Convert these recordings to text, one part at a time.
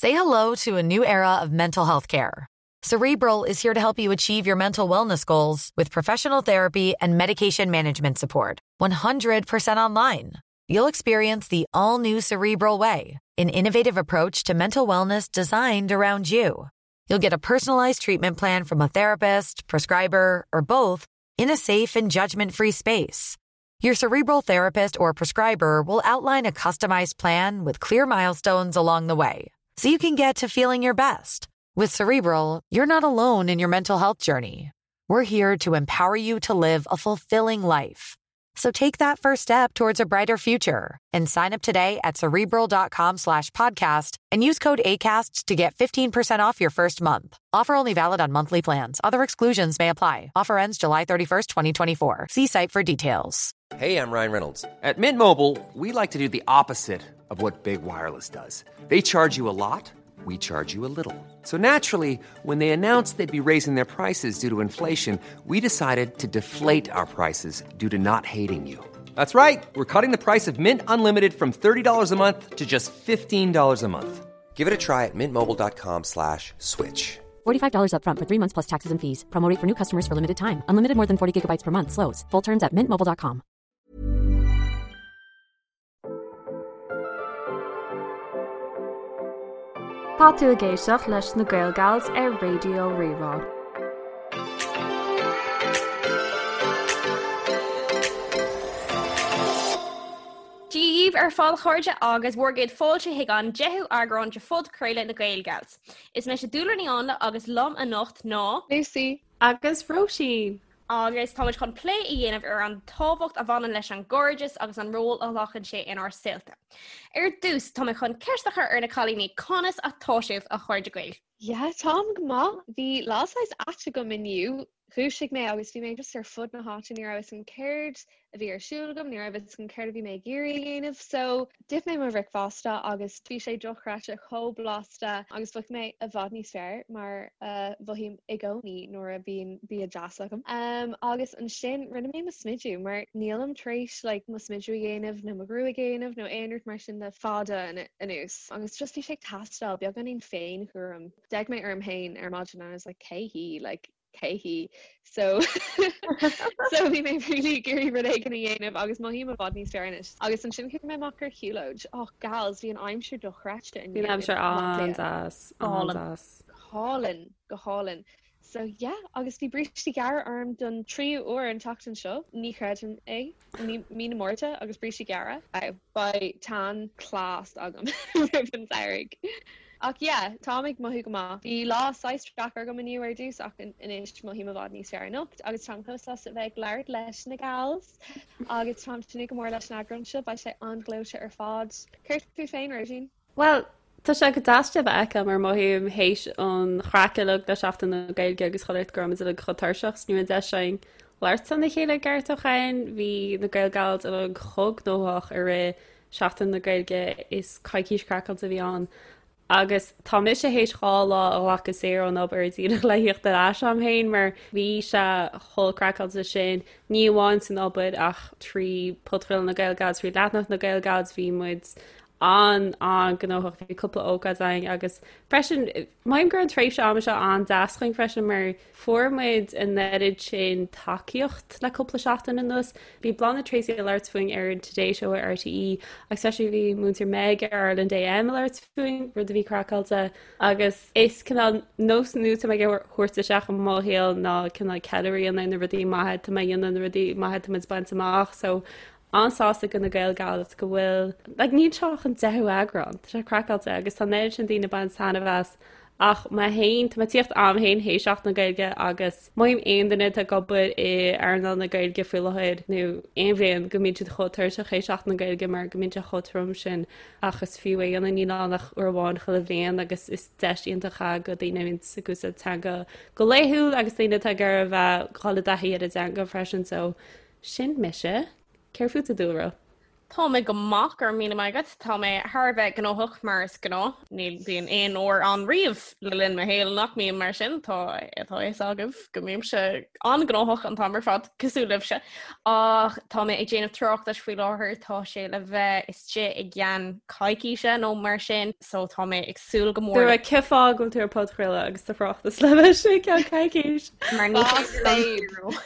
Say hello to a new era of mental health care. Cerebral is here to help you achieve your mental wellness goals with professional therapy and medication management support. 100% online. You'll experience the all new Cerebral Way, an innovative approach to mental wellness designed around you. You'll get a personalized treatment plan from a therapist, prescriber, or both in a safe and judgment free space. Your cerebral therapist or prescriber will outline a customized plan with clear milestones along the way so you can get to feeling your best. With Cerebral, you're not alone in your mental health journey. We're here to empower you to live a fulfilling life. So take that first step towards a brighter future and sign up today at cerebral.com slash podcast and use code ACAST to get 15% off your first month. Offer only valid on monthly plans. Other exclusions may apply. Offer ends July 31st, 2024. See site for details. Hey, I'm Ryan Reynolds. At Mint Mobile, we like to do the opposite of what Big Wireless does. They charge you a lot, we charge you a little. So naturally, when they announced they'd be raising their prices due to inflation, we decided to deflate our prices due to not hating you. That's right. We're cutting the price of Mint Unlimited from $30 a month to just $15 a month. Give it a try at mintmobile.com slash switch. $45 upfront for three months plus taxes and fees. Promo rate for new customers for limited time. Unlimited more than 40 gigabytes per month. Slows. Full terms at mintmobile.com. Tá tú ag éisteacht leis na Gaelgals ar Raidió Rí-Rá. Dia dhaoibh ar fad a chairde agus bhur gcéad fáilte chuig an 10ú eagrán de phodchraoladh na Gaelgals. Is mise Dúlra Ní Áinle agus liom anocht ná. Lucy. Agus Róisín. Agus táimid chun plé a dhéanamh ar an tábhacht a bhaineann leis an gcairdeas agus an ról a ghlacann sé inár saolta. Ar dtús, tá mé chun ceist a chur ar na cailíní, conas atá sibh, a chairde Gael? Yeah, táim go maith. Bhí lá saghas ait agam inniu. Dhúisigh mé agus bhí mé just ar fud na háite, ní raibh fhios agam céard a bhí ar siúl agam, ní raibh fhios agam céard a bhí mé ag iarraidh a dhéanamh. So, d'ith mé mo bhricfeasta agus bhí sé dochreidte chomh blasta agus mhothaigh mé i bhfad níos fearr mar a mhothaím i gcónaí nuair a bhíonn bia deas agam. Um, agus ansin rinne mé mo smidiú mar nílim tar éis like, mo smidiú a dhéanamh nó mo ghruaig a dhéanamh nó aon rud mar sin le fada anuas. Agus just bhí sé ag teastáil beagáinín féinchúram. D'fhéach mé orm féin ar maidin and I was like cé hí like cé hí so so bhí mé really ag iarraidh rud éigin a dhéanamh agus mothaím i bhfad níos fearr anois. Agus ansin chuaigh mé amach ar shiúlóid. Oh gals, bhí an aimsir dochreidte inniu. Bhí an aimsir an-deas, an-deas. Go hálainn, go hálainn. So yeah, agus bhí brístí gearra orm don tríú uair an tseachtain seo, ní chreidim é. Mí na Márta agus brístí gearra. Beidh tan class agam roimh an samhradh. Ach yeah, táim ag mothú go maith. Bhí lá saghas deacair agam inniu ar dtús ach anois mothaím i bhfad níos fearr anocht agus táim chomh sásta a bheith ag labhairt leis na gals agus táim ag tnúth go mór leis an eagrán seo, beidh sé an-ghleoite ar fad. Céard fút féin, Róisín? Bhuel, tá sé go deas sibh a fheiceáil mar mothaím théis an chraic uilig le Seachtain na Gaeilge agus chuile shórt go raibh muid uilig chomh tuirseach 's ní raibh an deis againn labhairt lena chéile i gceart ó shin. Bhí na Gaelgals uilig chomh gnóthach i rith Seachtain na Gaeilge is coicís craiceáilte a bhí ann. Agus tá mise théis 2 lá a ghlacadh saor ón obair díreach le thíocht ar ais a'm féin mar bhí sé chomh craiceáilte sin, ní amháin san obair ach trí podchraoladh na Gaelgals, trí leathanach na Gaelgals, bhí muid an-an-ghnóthach, bhí cúpla ócáid againn agus freisin mothaím go raibh an tréimhse ama seo an-deas chugainn freisin mar fuair muid an oiread sin tacaíocht le cúpla seachtain anuas. Bhí Bláthnaid Treacy ag labhairt fúinn ar an Today Show ar RTÉ agus freisin bhí Múinteoir Meg ar Ireland AM ag labhairt fúinn, rud a bhí craiceáilte agus is cineál nós nua atá mé ag thabhairt isteach i mo shaol ná cineál ceiliúradh a dhéanamh ar na rudaí maithe atá mé a dhéanamh, na rudaí maithe atá muid ag baint amach so an-sásta go na Gaelgals go bhfuil like níl seo ach an deichiú eagrán, tá sé craiceáilte agus tá an oiread sin daoine ag baint taitneamh as ach mé féin, tá mé ag tíocht a'm féin théis Seachtain na Gaeilge agus mothaím aon duine atá ag obair i earnáil na Gaeilge faoi láthair nó aon bhliain go mbíonn siad chomh tuirseach théis Seachtain na Gaeilge mar go mbíonn sé chomh trom sin ach is fiú é a dhéanamh níl ann ach uair amháin chuile bhliain agus is deis iontach é go daoine a bhíonn ag úsáid teanga go laethúil agus daoine atá ag iarraidh a bheith ag dul i dtaithí ar an dteanga freisin so Sin mise. Céard fút a Dúlra? Tá mé go maith, go raibh míle maith agat. Tá mé thar a bheith gnóthach mar is gnáth. Ní bhíonn aon uair ann riamh le linn mo shaoil nach mbím mar sin. Tá tá a fhios agaibh go mbímse an-ghnóthach an t-am ar fad, cosúil libhse. Ach tá mé ag déanamh tráchtais faoi láthair, tá sé le bheith istigh i gceann coicíse nó mar sin, so tá mé ag súil go mór. Dúradh cén fáth go bhfuil tú ar podchraoladh agus do thráchtas le bheith istigh i gceann coicís. Mar ní féidir liom díriú.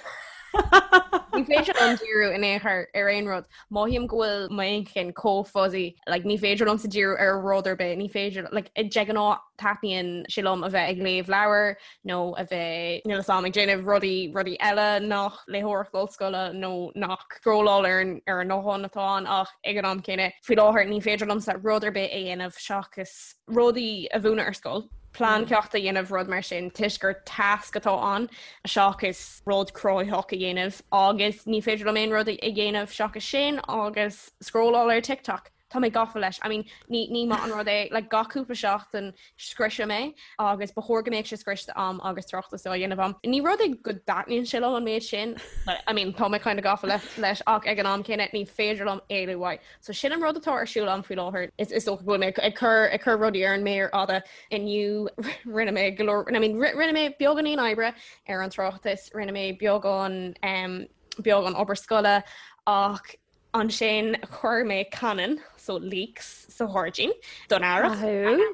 Ní féidir liom díriú in aon chor ar aon rud. Mothaím go bhfuil m'inchinn chomh fuzzy, like, ní féidir liomsa díriú ar rud ar bith, ní féidir, like, de ghnáth taitníonn sé liom a bheith ag léamh leabhar nó a bheith, níl a fhios agam, ag déanamh rudaí, rudaí eile nach léitheoireacht ollscoile nó nach scrolláil ar an, ar an nguthán atá ann ach ag an am céanna, faoi láthair ní féidir liomsa rud ar bith a dhéanamh seachas rudaí a mhúineadh ar scoil, plean ceachta a dhéanamh, rud mar sin, toisc gur tasc atá ann seachas rud cruthaitheach a dhéanamh agus ní féidir liom aon rud a dhéanamh seachas sin agus scrolláil ar TikTok. Tá mé gafa leis. I mean, ní, ní maith an rud é, like, gach cúpla seachtain scriosaim é agus ba chóir go mbeadh sé scriosta a'm agus tráchtas á dhéanamh a'm. Ní rud é go dtaitníonn sé liom an méid sin, but, I mean, tá mé kind of gafa leis ach ag an am céanna ní féidir liom éalú uaidh. So sin an rud atá ar siúl a'm faoi láthair. Is is dócha go bhfuil mé ag cur ag cur rudaí ar an méar fhada inniu rinne mé go leor I mean rinne mé beagáinín oibre ar an tráchtas, rinne mé beagán um, beagán obair scoile ach ansin chuir mé canann so leeks sa ghairdín don earrach.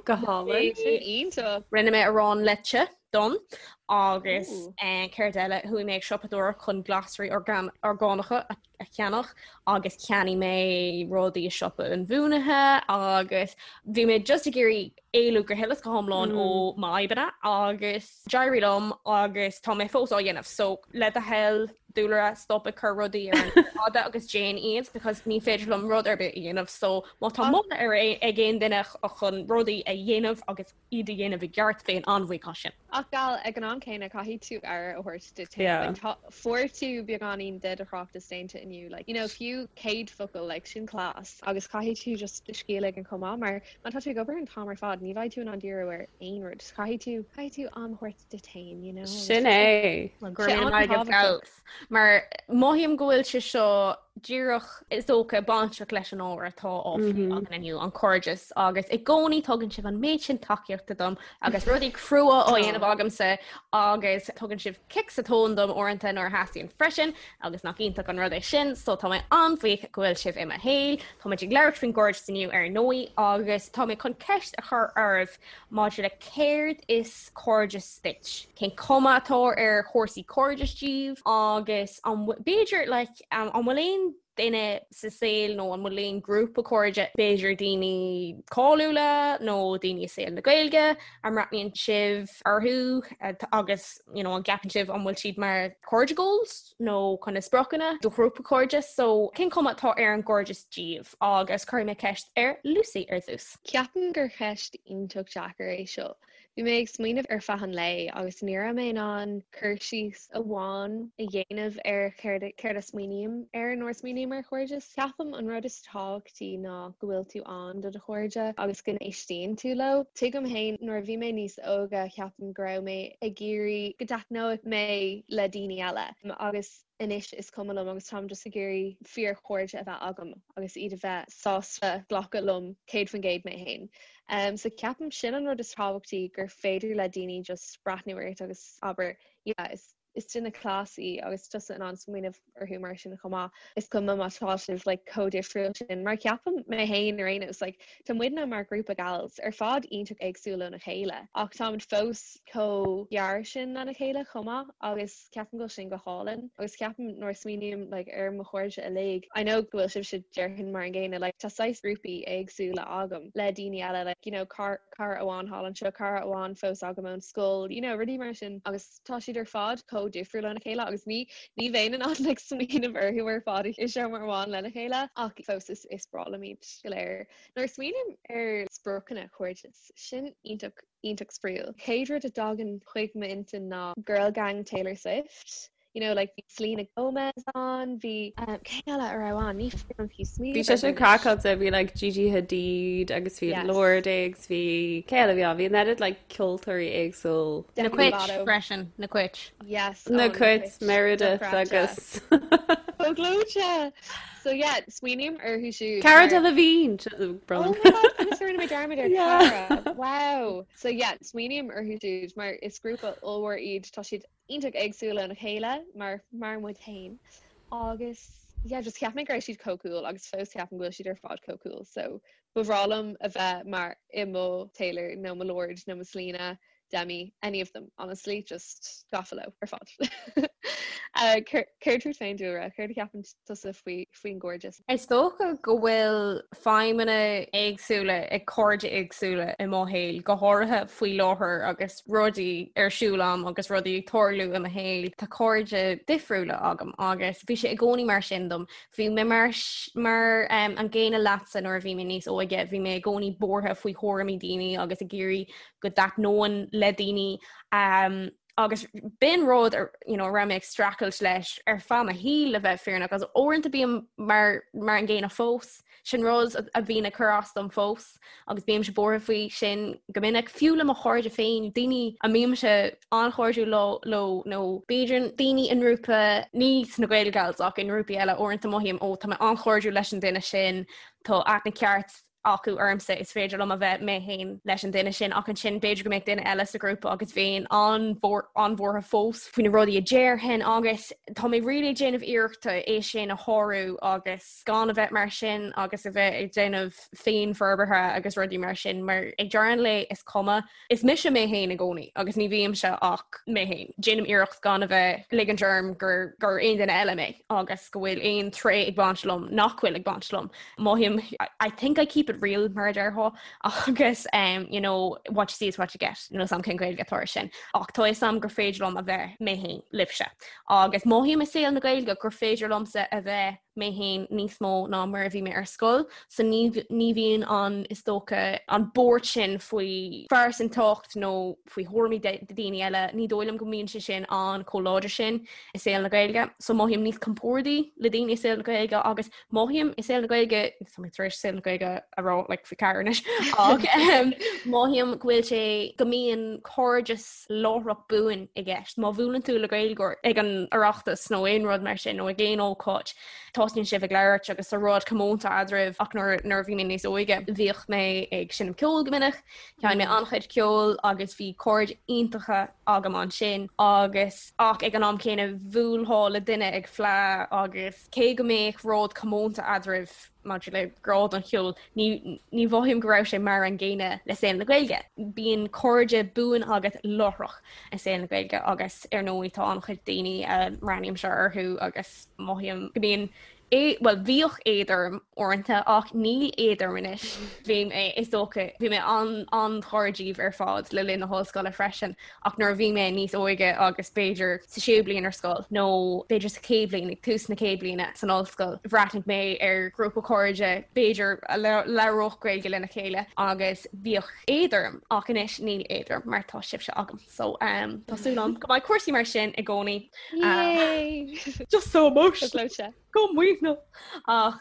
Go hálainn. Sin iontach. Rinne mé arán leite donn agus eh, céard eile chuaigh mé ag siopadóireacht chun glasraí orgánacha a a cheannach agus cheannaigh mé rudaí i siopa inbhuanaithe agus bhí mé just ag iarraidh éalú go huile is go hiomlán ó m'fhadhbanna agus d'éirigh liom agus tá mé fós á dhéanamh. So le do thoil Dúlra stop ag cur rudaí ar an méar fhada agus déan iad because ní féidir liom rud ar bith a dhéanamh so má tá moladh ar ag aon duine chun rudaí a dhéanamh agus iad a dhéanamh i gceart, bheinn an-bhuíoch as sin. Ach gal, ag an am céanna, caithfidh tú aire a thabhairt duit féin. Like, tá, fuair tú beagáinín de do thráchtas déanta inniu, like, you know, fiú 100 focal, like, sin class. Agus caithfidh tú just do scíth a ligean chomh maith, mar má tá tú ag obair an t-am ar fad, ní bheidh tú in ann díriú ar aon rud. Caithfidh tú, caithfidh tú am a thabhairt duit féin, you know, agus Sin é. Go raibh míle maith agat, gals. Mar mothaím go bhfuil sé seo díreach is dócha bainteach leis an ábhar atá á phlé againn inniu, an cairdeas, agus i gcónaí tugann sibh an méid sin tacaíochta dom agus rudaí crua á dhéanamh agamsa agus tugann sibh cic sa tóin dom uaireanta nuair a theastaíonn freisin agus nach iontach an rud é sin, so tá mé an-bhuíoch go bhfuil sibh i mo shaol. Tá muid ag labhairt faoin gcairdeas inniu ar ndóigh agus tá mé chun ceist a chur oraibh maidir le céard is cairdeas duit, cén cuma atá ar chúrsaí cairdis daoibh agus an b'fhéidir like an bhfuil aon duine sa saol nó an bhfuil aon grúpa cairde, b'fhéidir daoine cáiliúla nó daoine i saol na Gaeilge a mbreathnaíonn sibh orthu agus you know, an gceapann sibh an bhfuil siad mar cairde goals nó chun na spriocanna do ghrúpa cairde so cén cuma atá ar an gcairdeas daoibh agus cuirfidh mé ceist ar Lucy ar dtús. Ceapaim gur cheist iontach deacair é seo. Bhí mé ag smaoineamh ar feadh an lae agus ní raibh mé in ann cur síos amháin a dhéanamh ar céard céard a smaoiním air nuair a smaoiním ar chairdeas. Ceapaim an rud is tábhachtaí ná go bhfuil tú ann do do chairde agus go n-éistíonn tú leo. Tuigim féin nuair a bhí mé níos óige ceapaim go raibh mé ag iarraidh go dtaitneodh mé le daoine eile agus anois is cuma liom agus táim just ag iarraidh fíorchairde a bheith agam agus iad a bheith sásta glacadh liom 100% mé féin. Um, so ceapaim sin an rud is tábhachtaí gur féidir le daoine just breathnú ort agus abair yeah, is is duine class í agus tusa in ann smaoineamh orthu mar sin chomh maith. Is cuma má tá sibh like, chomh difriúil sin mar ceapaim mé féin ar aon nós like, tá muidne mar grúpa gals ar fad iontach éagsúil óna chéile ach táimid fós chomh gearr sin lena chéile chomh maith agus ceapaim go bhfuil sin go hálainn agus ceapaim nuair a smaoiním like ar mo chairde uilig I know go bhfuil sibhse déarfainn mar an gcéanna like tá saghas grúpaí éagsúla agam le daoine eile like you know cara amháin thall anseo cara amháin fós agam ón scoil you know rudaí mar sin agus tá siad ar fad chomh difriúil óna chéile agus ní ní bheinn in ann like smaoineamh orthu ar fad i seomra amháin lena chéile ach fós is is breá liom iad go léir. Nuair a smaoiním ar spriocanna cairdeas sin iontach iontach spraíúil. Chéad rud a dtagann chuig m'intinn ná Girl Gang Taylor Swift. You know, like bhí Selena Gomez ann, bhí um, cé eile a raibh ann? Ní féidir liom fiú smaoineamh Bhí sé sin craiceáilte, bhí like Gigi Hadid agus bhí yes. Lorde agus bhí cé eile bhí ann, bhí an oiread like ceoltóirí éagsúil. Na Cait freisin, na Cait. Yes, na Cait Meredith agus. Chomh gleoite! So yeah, smaoiním orthu siúd. Cara Delevingne! Oh my god, conas a rinne mé dearmad ar Cara? Wow! So yeah, smaoiním orthu siúd mar is grúpa ollmhór iad, tá siad iontach éagsúil óna chéile mar mar muid féin agus yeah, just cheap mé go raibh siad chomh cool agus fós ceapaim go bhfuil siad ar fad chomh cool so ba bhreá liom a bheith mar i mo Taylor nó mo Lorde nó mo Selena Demi, any of them, honestly, just gafa leo ar fad. Céard fút féin Dúlra, céard a cheapann tusa faoi faoin gcairdeas? Is dócha go bhfuil feidhmeanna éagsúla ag cairde éagsúla i mo shaol, go háirithe faoi láthair agus rudaí ar siúl agam agus rudaí ag tarlú i mo shaol. Tá cairde difriúla agam agus bhí sé i gcónaí mar sin dom. Bhí mé mar mar an gcéanna leatsa nuair a bhí mé níos óige, bhí mé i gcónaí buartha faoi thuairimí daoine agus ag iarraidh go dtaitneoinn le daoine um, agus b'in rud you know, raibh mé ag streachailt leis ar feadh mo shaoil le bheith fírinneach agus uaireanta bím mar, mar an gcéanna fós. Sin rud a bhíonn ag cur as dom fós agus bímse buartha faoi sin go minic fiú le mo chairde féin, daoine a mbímse an-chairdiúil leo, leo nó b'fhéidir daoine i ngrúpa ní sna Gaelgals ach i ngrúpaí eile uaireanta mothaím ó tá mé an-chairdiúil leis an duine sin, tá aithne ceart acu ormsa, is féidir liom a bheith mé féin leis an duine sin ach ansin b'fhéidir go mbeadh duine eile sa ghrúpa agus bheinn an-bhuartha fós faoi na rudaí a déarfainn agus tá mé really ag déanamh iarrachta é sin a shárú agus gan a bheith mar sin agus a bheith ag déanamh féinfhorbartha agus rudaí mar sin mar ag deireadh an lae is cuma Is mise mé féin i gcónaí agus ní bhímse ach mé féin. Déanaim iarracht gan a bheith ag ligint orm gur gur aon duine eile mé agus go bhfuil aon tréith ag baint liom nach bhfuil ag baint liom. Mothaím I think I keep it real mar a déarfá agus um, you know, what you see is what you get. Níl a fhios agam cén Ghaeilge atá air sin. Ach tá a fhios agam gur féidir liom a bheith mé féin libhse. Agus mothaím i saol na Gaeilge gur féidir liomsa a bheith mé féin níos mó ná mar a bhí mé ar scoil, so ní ní bhíonn an, is dócha, an buairt sin faoi phearsantacht nó faoi thuairimí daoine eile, ní dóigh liom go mbíonn sé sin an chomh láidir sin i saol na Gaeilge. So mothaím níos compórdaí le daoine i saol na Gaeilge agus mothaím i saol na Gaeilge, tá mé tar éis saol na Gaeilge a rá like faoi cheathair anois, ach mothaím go bhfuil sé, go mbíonn cairdeas láithreach buan i gceist. Má bhuaileann tú le Gaeilgeoir ag an Oireachtas nó aon rud mar sin nó ag aon ócáid, tosnaíonn sibh ag labhairt agus tá rud comónta eadraibh ach nuair nuair a bhí mé níos óige bhíodh mé ag seinm ceoil go minic, sheinn mé an-chuid ceoil agus bhí cairde iontacha agam ansin agus ach ag an am céanna bhuailfeá le duine ag fleá agus cé go mbeadh rud comónta eadraibh maidir le grá don cheol, ní mhothaím go raibh sé mar an gcéanna le saol na Gaeilge. Bíonn cairde buan agat láithreach i saol na Gaeilge agus ar ndóigh tá an-chuid daoine a mbreathnaímse orthu agus mothaím go mbíonn bhuel bhíodh éad orm uaireanta ach níl éad orm anois. Bhí mé, is dócha, bhí mé an-chairdiúil ar fad le linn na hollscoile freisin Ach nuair a bhí mé níos óige agus b'fhéidir sa séú bliain ar scoil nó b'fhéidir sa chéad bhliain, ag tús na chéad bliana san ollscoil, bhreathnaigh mé ar ghrúpa cairde b'fhéidir a labhródh Gaeilge lena chéile agus bhíodh éad orm ach anois níl éad orm mar tá sibhse agam. So um, tá súil agam go mbeidh cúrsaí mar sin i gcónaí. Yay! Just so emotional. Go maoithneach. Ach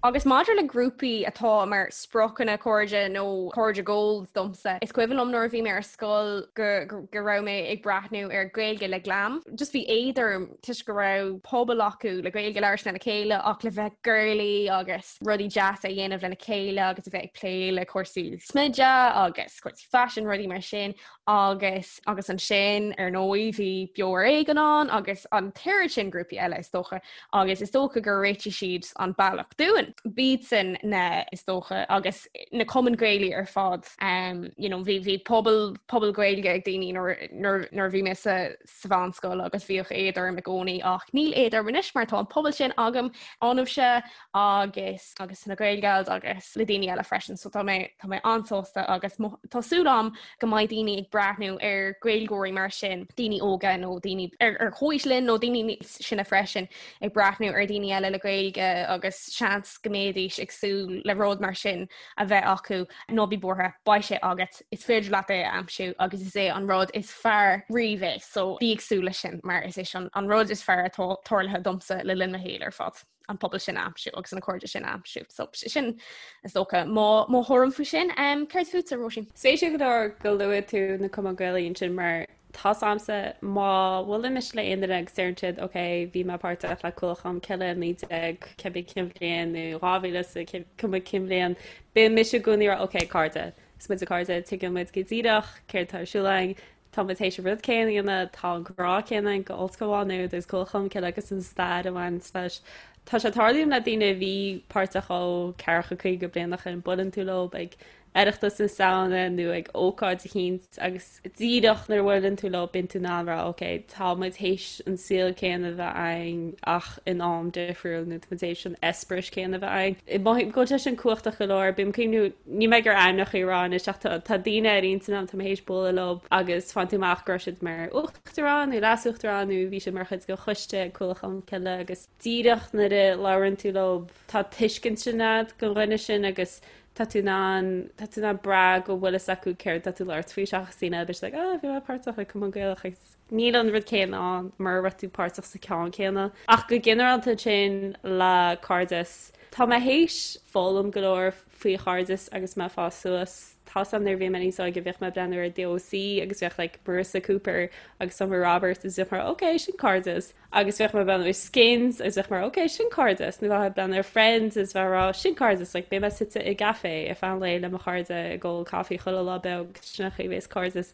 agus maidir le grúpaí atá mar spriocanna cairde nó cairde goals domsa, is cuimhin liom nuair a bhí mé ar scoil go go raibh mé ag breathnú ar Gaeilge le Glam. Just bhí éad orm toisc go raibh pobal acu le Gaeilge a labhairt lena chéile ach le bheith girly agus rudaí deasa a dhéanamh lena chéile agus a bheith ag plé le cúrsaí smididh agus cúrsaí faisin rudaí mar sin agus agus ansin ar ndóigh bhí Beo ar Éigean ann agus an t-oiread sin grúpaí eile is dócha agus is dócha gur réitigh siad an bealach dúinn. B'iadsan na is dócha agus na cumainn Gaelaí ar fad um, you know, bhí bhí pobal pobal Gaeilge ag daoine nuair nuair nuair a bhí mé sa sa mheánscoil agus bhíodh éad orm i gcónaí ach níl éad orm anois mar tá an pobal sin agam ionaibhse agus agus sna Gaelgals agus le daoine eile freisin so tá mé tá mé an-sásta agus tá súil agam go mbeidh daoine ag breathnú ar Gaeilgeoirí mar sin, daoine óga nó daoine ar ar chomhaois linn nó daoine níos sine freisin ag breathnú ar daoine eile le Gaeilge agus seans go mbeidís ag súil le rud mar sin a bheith acu ná bí buartha, beidh sé agat, is féidir leat é a aimsiú agus is é an rud is fearr riamh é so bí ag súil leis sin mar is é sin an rud is fearr atá tarlaithe domsa le linn mo shaoil ar fad. an pobal sin a aimsiú agus na cairde sin a aimsiú. So sin is dócha mo mo thuairim faoi sin. Um, céard fútsa Róisín? Spéisiúil go leor go luaigh tú na cumainn Gaelaí ansin mar Tá's a'msa má bhuaileann mise le aon duine agus deireann siad ok bhí mé páirteach le Cualann Cholmcille i 19 cibé cén bhliain nó 2000 is cuma cén bhliain, bíonn mise i gcónaí ag rá ok cairde, is muid cairde, tuigeann muid go díreach céard atá ar siúl againn, tá muid théis an rud céanna a dhéanamh, tá an grá céanna againn go Ollscoil Mhá Nuad agus Cualann Cholmcille agus an stair a bhaineanns leis. Tá sé ag tarlú le daoine a bhí páirteach ó 40, 50 bliain ó shin, buaileann tú leo ag Oireachtas na Samhna nó ag ócáid eicínt agus díreach nuair a bhuaileann tú leo bíonn tú in ann rá ok tá muid théis an saol céanna a bheith againn ach in am difriúil nó tá muid théis an eispéireas céanna a bheith againn. Mothaím go bhfuil sé sin cumhachtach go leor, bím ag cuimhniú, níl mé ag iarraidh ainmneacha a rá anois ach tá tá daoine ar intinn agam tá mé théis bualadh leo agus faigheann tú amach go raibh siad mar uachtarán nó leas-uachtarán nó bhí siad mar chuid de choiste Cualann Cholmcille agus díreach nuair a labhrann tú leo tá tuiscint sin agat don dhuine sin agus tá tú in ann, tá tú in ann brath go bhfuil fhios acu céard tá tú labhairt faoi seachas daoine eile, beidh siad like oh bhí mé páirteach i Cumann Gaelach agus níl an rud céanna ann mura raibh tú páirteach sa ceann céanna. Ach go ginearálta ansin le cairdeas, tá mé théis foghlaim go leor faoi chairdeas agus mé ag fás suas. Tá's a'm nuair a bhí mé níos óige bhíodh mé ag breathnú ar The OC agus bheadh like Marissa Cooper agus Summer Roberts agus bheadh mé ok sin cairdeas. Agus bheadh mé ag breathnú ar Skins agus bheadh mé ok sin cairdeas nó bheadh mé ag breathnú ar Friends agus bheadh mé ag rá sin cairdeas like beidh mé suite i gcaife ar feadh an lae le mo chairde ag ól caife chuile lá beag sin an chaoi a bheas cairdeas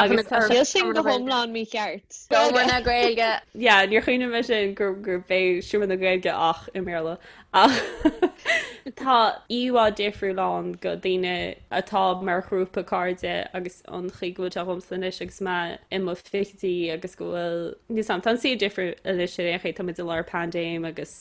Agus tá Níl sin go hiomlán mícheart. Seomra na Gaeilge. Yeah, níor chuimhnigh mé sin gur gur b'é Seomra na Gaeilge ach i mBéarla. Ach tá íomhá difriúil ann go daoine atá mar ghrúpa cairde agus an chaoi go bhfuil sé dhomsa anois agus mé i mo fichidí agus go bhfuil níl 's a'm, tá an saol difriúil anois ar aon chaoi, tá muid i lár paindéim agus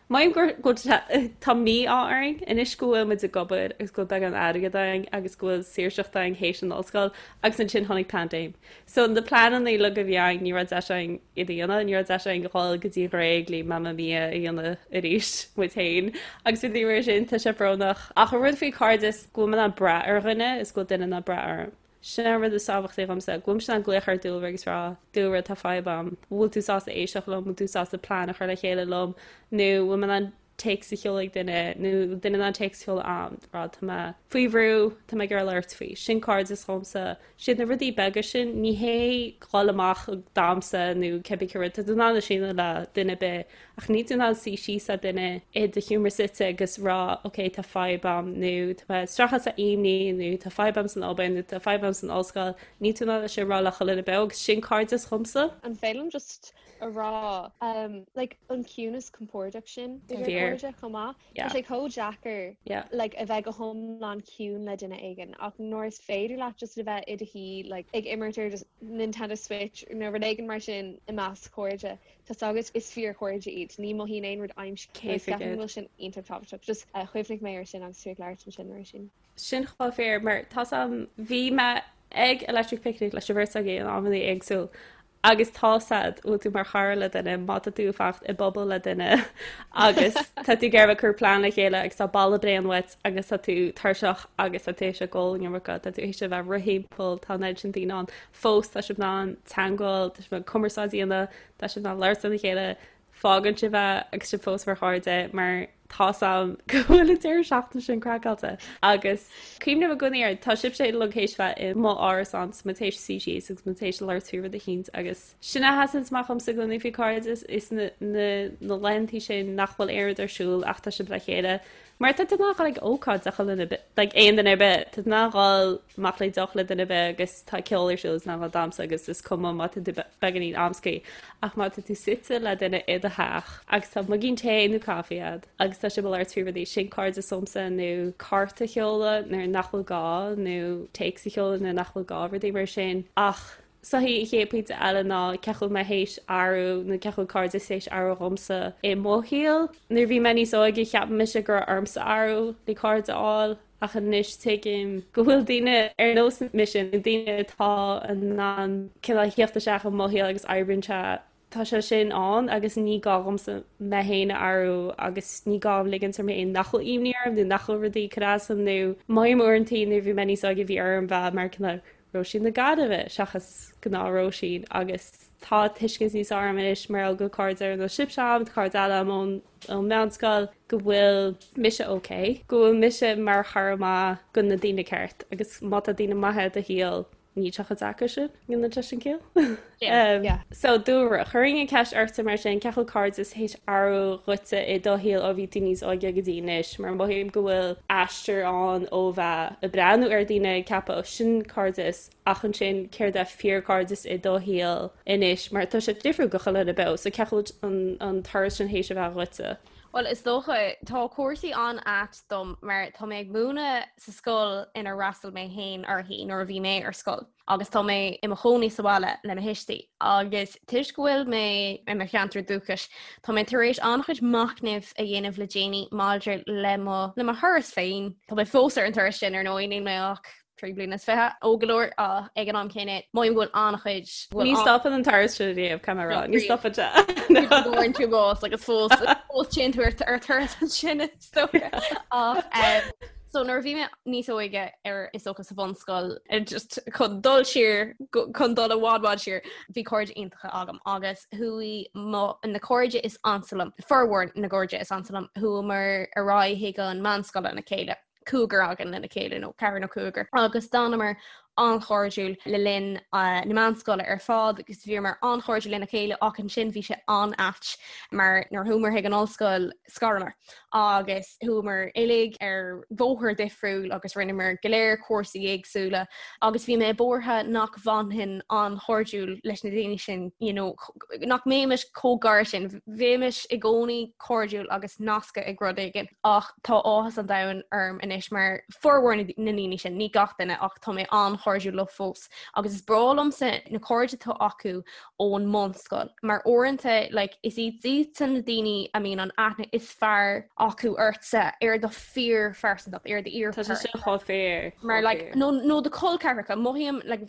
mothaím gur go bhfuil tá mí-ádh orainn anois go bhfuil muid ag obair agus go bhfuil beagán airgead againn agus go bhfuil saoirseacht againn théis an ollscoil agus ansin tháinig paindéim. So na pleananna uilig a bhí againn, ní raibh deis againn iad a dhéanamh, ní raibh deis againn dhul go dtí an Ghréig le Mamma Mia a dhéanamh arís muid féin agus rudaí mar sin, tá sé brónach. Ach an rud faoi cairdeas, go bhfuil mé in ann brath ar dhuine is go bhfuil duine in ann brath orm. Sin an rud is tábhachtaí dhomsa, go bhfuilimse in ann glaoch ar Dúlra agus rá, Dúlra, tá fadhb a'm, bhfuil tú sásta éisteacht liom, bhfuil tú sásta plean a chur le chéile liom, nó bhfuil mé in ann téacs a sheoladh ag duine nó duine in ann téacs a sheoladh a'm rá tá mé faoi bhrú, tá mé ag iarraidh labhairt faoi. Sin cairdeas dhomsa. Siad na rudaí beaga sin, ní hé dhul amach ag damhsa nó cibé cé rud, tá tú in ann é sin a dhéanamh le duine ar bith ach níl tú in ann suí síos le duine i do sheomra suite agus rá ok tá fadhb a'm nó tá mé ag streachailt le imní nó tá fadhb a'm san obair nó tá fadhb a'm san ollscoil, níl tú in ann é sin a rá le chuile dhuine beo agus sin cairdeas dhomsa. An féidir liom just a rá like an ciúnas compordach sin idir cairde chomh maith. Tá sé chomh deacair like a bheith go hiomlán ciúin le duine éigin ach nuair is féidir leat just a bheith i do shuí like ag imirt ar just Nintendo Switch nó rud éigin mar sin i measc cairde, tá 's agat is fíorchairde iad, ní mothaíonn aon rud aimsithe agus ceapaim go bhfuil sin iontach tábhachtach. Just chuimhnigh mé air sin agus tú ag labhairt ansin mar sin. Sin chomh fíor mar tá's a'm bhí mé ag Electric Picnic leis an bheirt agaibh in amannaí éagsúil Agus tá's a'd, bhfuil tú mar chara le duine, má tá tú ag fanacht i bpuball le duine agus tá tú ag iarraidh cur plean le chéile agus tá boladh bréan uait agus tá tú tuirseach agus tá tú théis ag ól an iomarca, tá tú théis a bheith ag rith thimpeall, tá an oiread sin daoine ann, fós tá sibh in ann teagmháil, tá sibh in ann cumarsáid a dhéanamh, tá sibh in ann labhairt lena chéile, fágann sibh é agus sibh fós mar chairde mar tá's a'm go bhfuil an deireadh seachtaine sin craiceáilte. Agus cuimhním i gcónaí air, tá sibhse uilig théis bheith i mo árasán 's muid théis suí síos agus muid théis labhairt faoi rud eicínt agus sin a sheasann amach dhomsa i gcónaí faoi cairdeas is na na na laethantaí sin nach bhfuil aon rud ar siúl ach tá sibh le chéile Mar tá tú in ann dhul ag ócáid le chuile dhuine, like aon duine ar bith, tá tú in ann dhul amach le deoch le duine ar bith agus tá ceol ar siúl is in ann dhul damhsa agus is cuma má tá tú beagáinín amscaí ach má tá tú suite le duine i do theach agus tá muigín tae nó caife agat agus tá sibh ag labhairt faoi rudaí, sin cairdeas dhomsa nó cárta a sheoladh nuair nach bhfuil gá nó téacs a sheoladh nuair nach bhfuil gá, rudaí mar sin ach So an chéad pointe eile ná cén chaoi a bhfuil mé théis athrú nó cén chaoi a bhfuil cairdeas théis athrú dhomsa i mo shaol. Nuair a bhí mé níos óige cheap mise go raibh ormsa athrú le cairde a fháil ach anois tuigim go bhfuil daoine ar nós mise nó daoine atá in ann cineál theacht isteach i mo shaol agus oibríonn sé Tá sé sin ann agus ní gá dhomsa mé féin a athrú agus ní gá dom ligint orm féin nach bhfuil imní orm nó nach bhfuil rudaí ag cur as dom nó mothaím uaireantaí nuair a bhí mé níos óige bhí orm bheith mar cineál Róisín na Gaillimhe seachas gnáth Róisín agus tá tuiscint níos fearr agam anois mar gheall go cairde ar nós sibhse agam, tá cairde eile agam ón ón meánscoil go bhfuil mise ok, go bhfuil mise mar chara maith go na daoine ceart agus má tá daoine maithe i do shaol. Níl sé chomh deacair sin, an deis an ciall. So Dúlra, chuirfinn an ceist ortsa mar sin, cén chineál cairdeas théis athrú dhuitse i do shaol ó bhí tú níos óige go dtí anois, mar mothaím go bhfuil aistear ann ó bheith ag breathnú ar daoine ag ceapadh ó sin cairdeas ach ansin céard é fíorchairdeas i do shaol anois mar tá sé difriúil go chuile dhuine beo, so cén chaoi bhfuil an turas sin théis a bheith dhuitse? Bhuel, is dócha, tá cúrsaí an-ait dom mar tá mé ag múineadh sa scoil inar fhreastail mé féin uirthi nuair a bhí mé ar scoil agus tá mé i mo chónaí sa bhaile le mo thuistí agus toisc go bhfuil mé i mo cheantar dúchais tá mé tar éis an-chuid machnaimh a dhéanamh le déanaí maidir le mo le mo thuras féin. Tá mé fós ar an turas sin ar ndóigh, níl mé ach 23 bliana óg go leor ach ag an am céanna mothaím go bhfuil an-chuid Ní stopann an turas sin riamh, caithfidh mé a rá, ní stopann sé. Bhfuair tú bás agus fós fós téann tú ar turas ansin is dócha. Ach so nuair a bhí mé níos óige ar is dócha sa bhunscoil just chun dul siar chun dul i bhfad bhfad siar bhí cairde iontacha agam agus chuaigh mo na cairde is ansa liom formhór na gcairde is ansa liom chuamar ar aghaidh chuig an meánscoil lena chéile. cúigear againn lena chéile nó ceathrar nó cúigear agus d'fhanamar an-chairdiúil le linn na meánscoile ar fad agus bhíomar an-chairdiúil lena chéile ach ansin bhí sé an-ait mar nuair a chuamar chuig an ollscoil scaramar agus chuamar uilig ar bhóthar difriúil agus rinneamar go léir cúrsaí éagsúla agus bhí mé buartha nach bhfanfainn an-chairdiúil leis na daoine sin you know, nach mbeimis chomh gar sin bheimis i gcónaí cairdiúil agus nasctha ag rud éigin ach Tá áthas an domhain orm anois mar formhór na ndaoine sin, ní gach duine ach tá mé an-chairdiúil leo fós agus is breá liomsa na cairde atá acu ón mbunscoil mar uaireanta like, is iad iadsan na daoine a mbíonn an aithne is fearr acu ortsa ar do fíorphearsantacht, ar do fhíor Tá sé sin chomh fíor. Mar like, nó, nó do chol ceathracha, mothaím like,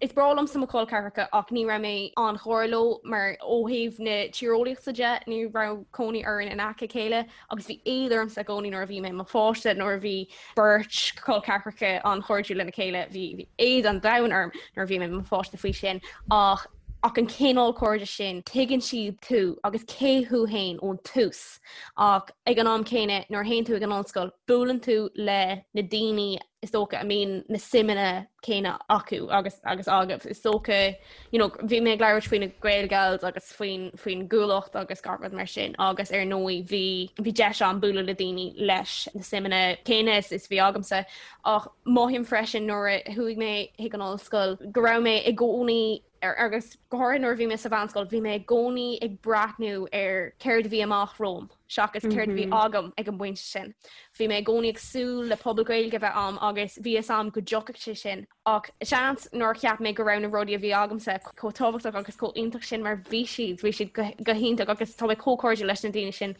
is breá liomsa mo chol ceathracha ach ní raibh mé an-ghar leo mar ó thaobh na tíreolaíochta de ní raibh cónaí orainn in aice a chéile agus bhí éad ormsa i gcónaí nuair a bhí mé i mo pháiste nuair a bhí beirt col ceathracha an-chairdiúil lena chéile bhí éad an domhain orm nuair a bhí mé i mo pháiste faoi sin ach ach an cineál cairde sin tuigeann siad tú agus cé thú féin ón tús ach ag an am céanna nuair a théann tú ag an ollscoil buaileann tú le na daoine is dócha a mbíonn na suimeanna céanna acu agus agus agaibh. Is dócha you know, bhí mé ag labhairt faoi na Gaelgals agus faoin faoin gCuallacht agus gach rud mar sin agus ar ndóigh bhí bhí deis agam bualadh le daoine leis na suimeanna céanna is is bhí agamsa ach mothaím freisin nuair a chuaigh mé chuig an ollscoil go raibh mé i gcónaí ar agus go háirithe nuair a bhí mé sa mheánscoil bhí mé i gcónaí ag breathnú ar céard a bhí amach romham seachas céard a bhí agam ag an bpointe sin. Bhí mé i gcónaí ag súil le pobal Gaeilge a bheith a'm agus bhí fhios a'm go dtiocfadh sé sin ach seans nár cheap mé go raibh na rudaí a bhí agamsa chomh tábhachtach agus chomh iontach sin mar bhí siad, bhí siad go hiontach agus tá mé chomh cairdiúil leis na daoine sin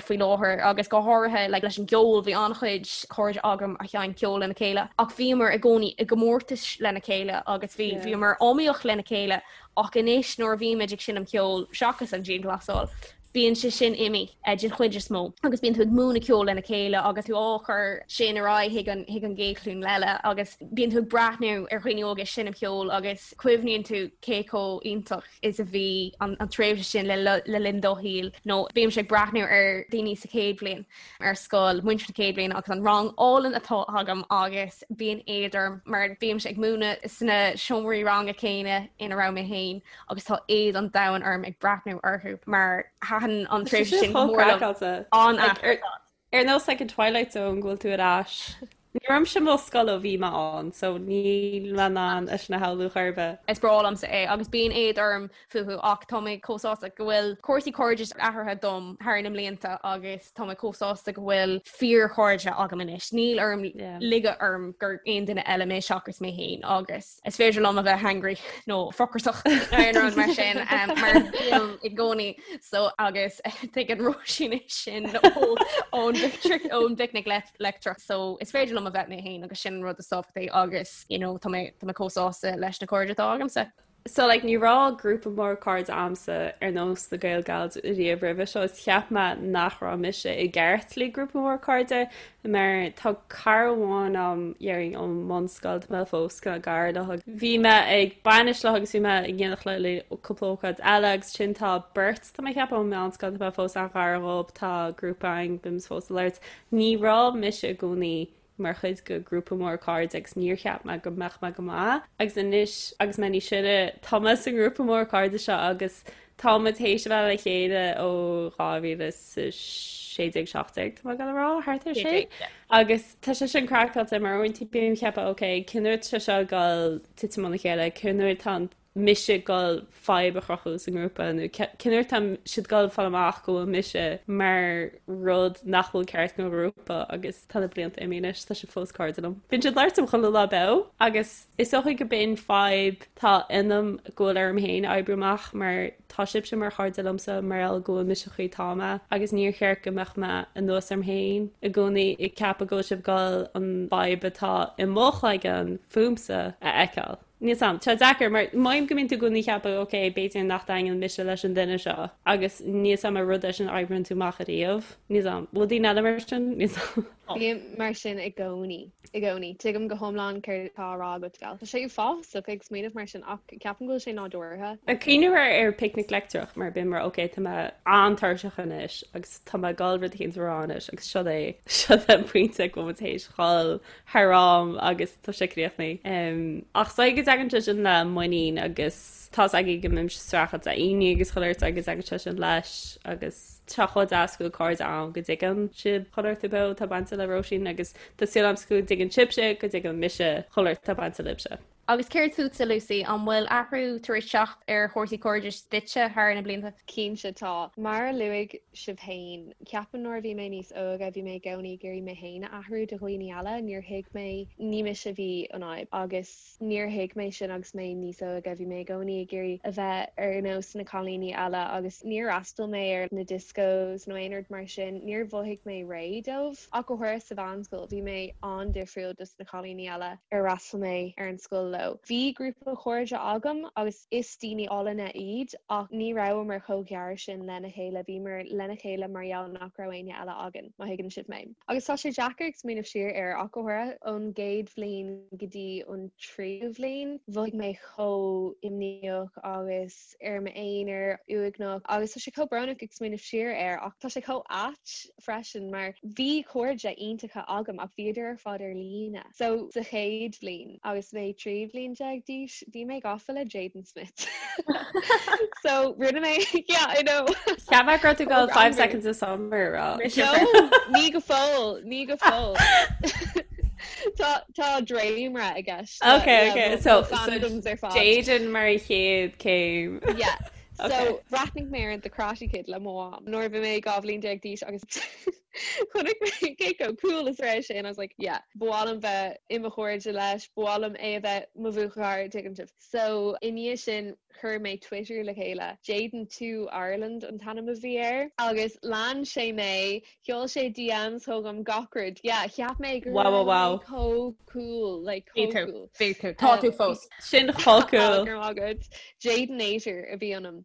faoi láthair agus go háirithe like, leis an gceol bhí an-chuid cairde agam a sheinn ceol lena chéile ach bhíomar i gcónaí i gcomórtais lena chéile agus bhí bhíomar iomaíoch lena chéile ach anois nuair a bhímid ag seinm ceoil seachas an dianghlasáil bíonn sé sin imithe den chuid is mó agus bíonn tú ag múineadh ceoil lena chéile agus tú á chur sin ar aghaidh chuig an chuig an gcéad ghlúin eile agus bíonn tú ag breathnú ar dhaoine óga ag seinm ceoil agus cuimhníonn tú cé chomh iontach is a bhí an an tréimhse sin le le linn do shaoil nó bímse ag breathnú ar daoine sa chéad bhliain ar scoil, muintir na chéad bhliana agus an rang álainn atá agam agus bíonn éad orm mar bímse ag múineadh sna seomraí ranga céanna ina raibh mé féin agus tá éad an domhain orm ag breathnú orthu mar thaitin an tréimhse sin go mór liom. An-ait. Ar nós like an Twilight Zone go bhfuil tú ar ais. Ní raibh mise i mo scoil ó bhí mé ann, so níl mé in ann é sin a shamhlú chor ar bith. Is breá liomsa é agus bíonn éad orm fúthu ach tá mé chomh sásta go bhfuil cúrsaí cairdis athraithe dom thar na mblianta agus tá mé chomh sásta go bhfuil fíorchairde agam anois. Níl orm ligeadh orm gur aon duine eile mé seachas mé féin agus is féidir liom a bheith hangry nó focrasach nó aon rud mar sin mar bím i gcónaí so agus tuigeann Róisín é sin ón ón bPicnic Leictreach so is féidir liom a bheith mé féin agus sin an rud is tábhachtaí agus you know tá mé tá mé chomh sásta leis na cairde atá agamsa. So like ní raibh grúpa mór cairde a'msa ar nós na Gaelgals riamh roimhe seo is cheap mé nach raibh mise i gceart le grúpa mór cairde mar tá cara amháin a'm déarfainn ón mbunscoil tá mé fós kind of gar léi. Bhí mé ag bainis léi agus bhí mé ag éineacht léi le cúpla ócáid eile agus ansin tá beirt tá mé ag ceapadh ón meánscoil tá mé fós an-ghar dhób tá grúpa againn bímid fós ag labhairt. Ní raibh mise i gcónaí. mar chuid de ghrúpa mór cairde agus níor cheap mé go mbeadh mé go maith agus anois agus mé níos sine tá mé sa ngrúpa mór cairde seo agus tá muid théis a bheith le chéile ó 2016 17 tá mé ag dul a rá thart ar sin agus tá sé sin craiceáilte mar uaireanta bím ag ceapadh ok cén uair atá sé seo ag dul titim óna chéile cén uair atá an mise ag dul fadhb a chruthú sa ngrúpa nó cén uair atá siad ag dul fáil amach go bhfuil mise mar rud nach bhfuil ceart don ghrúpa agus tá na blianta imithe anois, tá siad fós cairde liom. Bíonn siad ag labhairt liom chuile lá beo agus is dócha go b'in fadhb tá ionam go bhfuil orm féin oibriú amach mar tá sibhse mar chairde liomsa mar gheall go bhfuil mise an chaoi atá mé agus níor cheart go mbeadh mé anuas orm féin i gcónaí ag ceapadh go bhfuil sibh ag dul an fhadhb atá i mo chloigeann fúmsa a fheiceáil. Níl 's a'm. Tá sé deacair mar mothaím go mbíonn tú i gcónaí ag ceapadh ok, b'fhéidir nach dtaitníonn mise leis an duine seo agus níl 's a'm an rud é sin a oibríonn tú amach ariamh. Níl 's a'm. Bhfuil daoine eile mar sin? Níl 's a'm. Bím mar sin i gcónaí. I gcónaí. Tuigim go hiomlán céard atá á rá agat, Gal. Tá sé uafásach ag smaoineamh mar sin ach ceapaim go bhfuil sé nádúrtha. Ag cuimhneamh ar ar picnic leictreach mar bím mar ok tá mé an-tuirseach anois agus tá mé ag dul rud éicint a rá anois agus seo é seo é an pointe go bhfuil muid théis dhul thar am agus tá sé críochnaithe. Ach is dóigh go dtagann sé sin le muinín agus tá's agaibh go mbímse streachailt le imní agus chuile shórt agus tagann sé sin leis agus tá chomh deas go bhfuil cairde ann go dtuigeann siad chuile shórt beo atá bainte le Róisín agus tá súil agam go dtuigeann sibhse go dtuigeann mise chuile shórt atá bainte libhse. Agus céard fútsa, Lucy? An bhfuil athrú tar éis teacht ar chúrsaí cairdis duitse thar na blianta? Cinnte tá. Mar a luaigh sibh féin, ceapaim nuair a bhí mé níos óige bhí mé i gcónaí ag iarraidh mé féin a athrú do dhaoine eile. Níor thuig mé, ní mise a bhí an fhadhb agus níor thuig mé sin agus mé níos óige. Bhí mé i gcónaí ag iarraidh a bheith ar nós na cailíní eile agus níor fhreastail mé ar na discos nó aon rud mar sin. Níor mhothaigh mé réidh dóibh. Ach go háirithe sa mheánscoil, bhí mé an-difriúil dos na cailíní eile ar fhreastail mé ar an scoil leo. Bhí grúpa cairde agam agus is daoine álainne iad ach ní rabhamar chomh gearr sin lena chéile, bhíomar lena chéile mar gheall nach raibh éinne eile againn, má thuigeann sibh mé. Agus tá sé deacair ag smaoineamh siar air ach go háirithe ón gcéad bhliain go dtí an tríú bhliain, mhothaigh mé chomh imníoch agus ar m'aonar, uaigneach agus tá sé chomh brónach ag smaoineamh siar air ach tá sé chomh ait freisin mar bhí cairde iontacha agam ach bhíodar ar fad ar líne. So sa chéad bhliain agus mé 13 bhliain d'aois bhí mé gafa le Jaden Smith. So rinne mé yeah I know. Cheap mé go raibh tú ag dul 5 seconds of summer a rá. No, ní go fóill, ní go fóill. Tá tá dréimire i gceist. Ok ok so Jaden mar an chéad céim. Yeah. So bhreathnaigh mé ar The Karate Kid le mo mham nuair a bhí mé 12 bhliain d'aois agus chonaic mé cé chomh cool is a raibh sé and I was like yeah, ba mhaith liom bheith i mo chairde leis, ba mhaith liom é a bheith mo bhuachaill, tuigeann sibh. So i ndiaidh sin chuir mé Twitter le chéile, Jaden 2 Ireland an t-ainm a bhí air agus lean sé mé, sheol sé DMs chugam gach rud, yeah, cheap mé go raibh mé chomh cool, like chomh cool. Bhí tú, tá tú fós. Sin chomh cool. Go raibh maith agat. Jadenator a bhí ionam.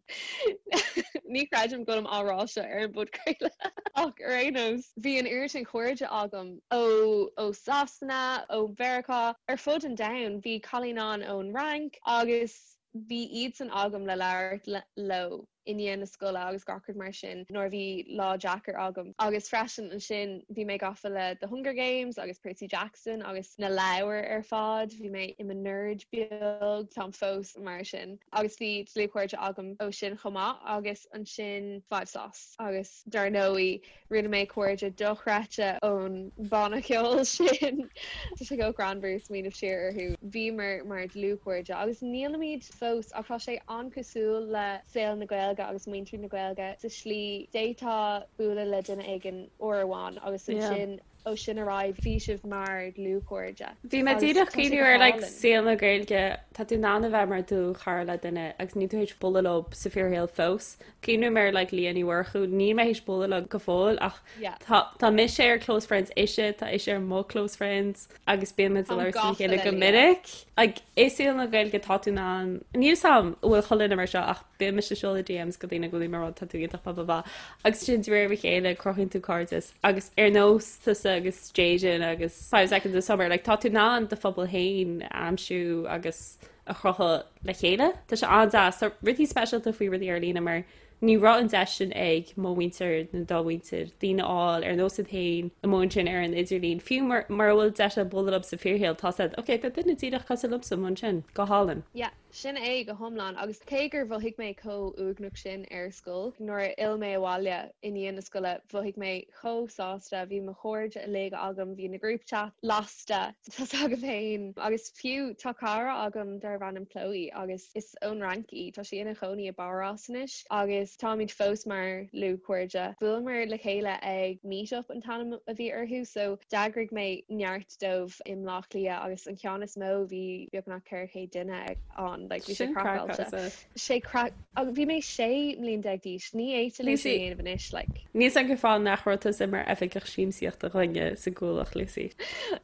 Ní chreidim go bhfuilim á rá seo ar an bpodchraoladh ach ar aon nós, bhí an oiread sin cairde agam ó ó Sasana, ó Mheiriceá, ar fud an domhain. Bhí cailín ann ón Fhrainc agus bhí iadsan agam le labhairt leo. i ndiaidh na scoile agus gach rud mar sin nuair a bhí lá deacair agam. Agus freisin ansin bhí mé gafa le The Hunger Games agus Percy Jackson agus na leabhair ar fad, bhí mé i mo nerd beag, táim fós mar sin. Agus bhí dlúthchairde agam ó sin chomh maith agus ansin 5SOS agus dar ndóigh Rinne mé cairde dochreidte ón banna ceoil sin. Tá sé chomh greannmhar smaoineamh siar orthu. Bhíomar mar dlúthchairde agus nílimid fós ach tá sé an-cosúil le saol na Gaeilge agus muintir na Gaeilge sa slí d'fhéadfá bualadh le duine éigin uair amháin agus ansin ó sin ar aghaidh bhí sibh mar dhlúthchairde. Bhí mé díreach ag cuimhneamh ar like saol na Gaeilge, tá tú in ann a bheith mar dlúthchara le duine agus níl tú théis bualadh leo sa fíorshaol fós. Cuimhním ar like Leah Ní Mhurchú, níl mé théis bualadh leo go fóill ach Yeah. tá tá mise ar close friends ise, tá ise ar mo close friends agus bíonn muid ag Táim labhairt lena gafa chéile le go Leah. minic. Like i saol na Gaeilge tá tú in ann, níl 's a'm an bhfuil chuile dhuine mar seo ach bíonn mise ag seoladh DMs go daoine go bhfuil mé ag rá tá tú iontach blah blah blah agus sin de réir a chéile cruthaíonn tú cairdeas agus ar nós tusa agus Jaden agus 5 Seconds of Summer like tá tú in ann do phobal féin a aimsiú agus a chruthú le chéile. Tá sé an-deas. Tá rudaí speisialta faoi rudaí ar líne mar Ní raibh an deis sin ag mo mhuintir nó do mhuintir, daoine a fháil ar nós iad féin amuigh ansin ar an idirlíon. Fiú mura bhfuil deis acu bualadh leo sa fíorshaol, tá siad, ok, tá duine díreach cosúil liomsa amuigh ansin, go hálainn. Yeah, sin é go hiomlán. Agus cé gur mhothaigh mé chomh uaigneach sin ar scoil, nuair a fhill mé abhaile i ndiaidh na scoile, mhothaigh mé chomh sásta, bhí mo chairde uilig agam, bhí na group chat lasta, tá 's agam féin. Agus fiú tá cara agam darbh ainm Chloe agus is ón Fhrainc í, tá sí ina chónaí i bPáras anois agus táimid fós mar dhlúthchairde. Bhuaileamar le chéile ag Meetup an t-ainm a bhí orthu so d'eagraigh mé neart dóibh i mBleá Cliath agus an ceann is mó bhí beagnach 400 duine ann, like bhí sé craiceáilte. Sé craic agus bhí mé 16 mbliain d'aois, ní fhéadfainn é sin a dhéanamh anois, like. Níl 's agam cén fáth nach raibh tusa mar oifigeach siamsaíochta dhúinne sa gCuallacht, Lucy.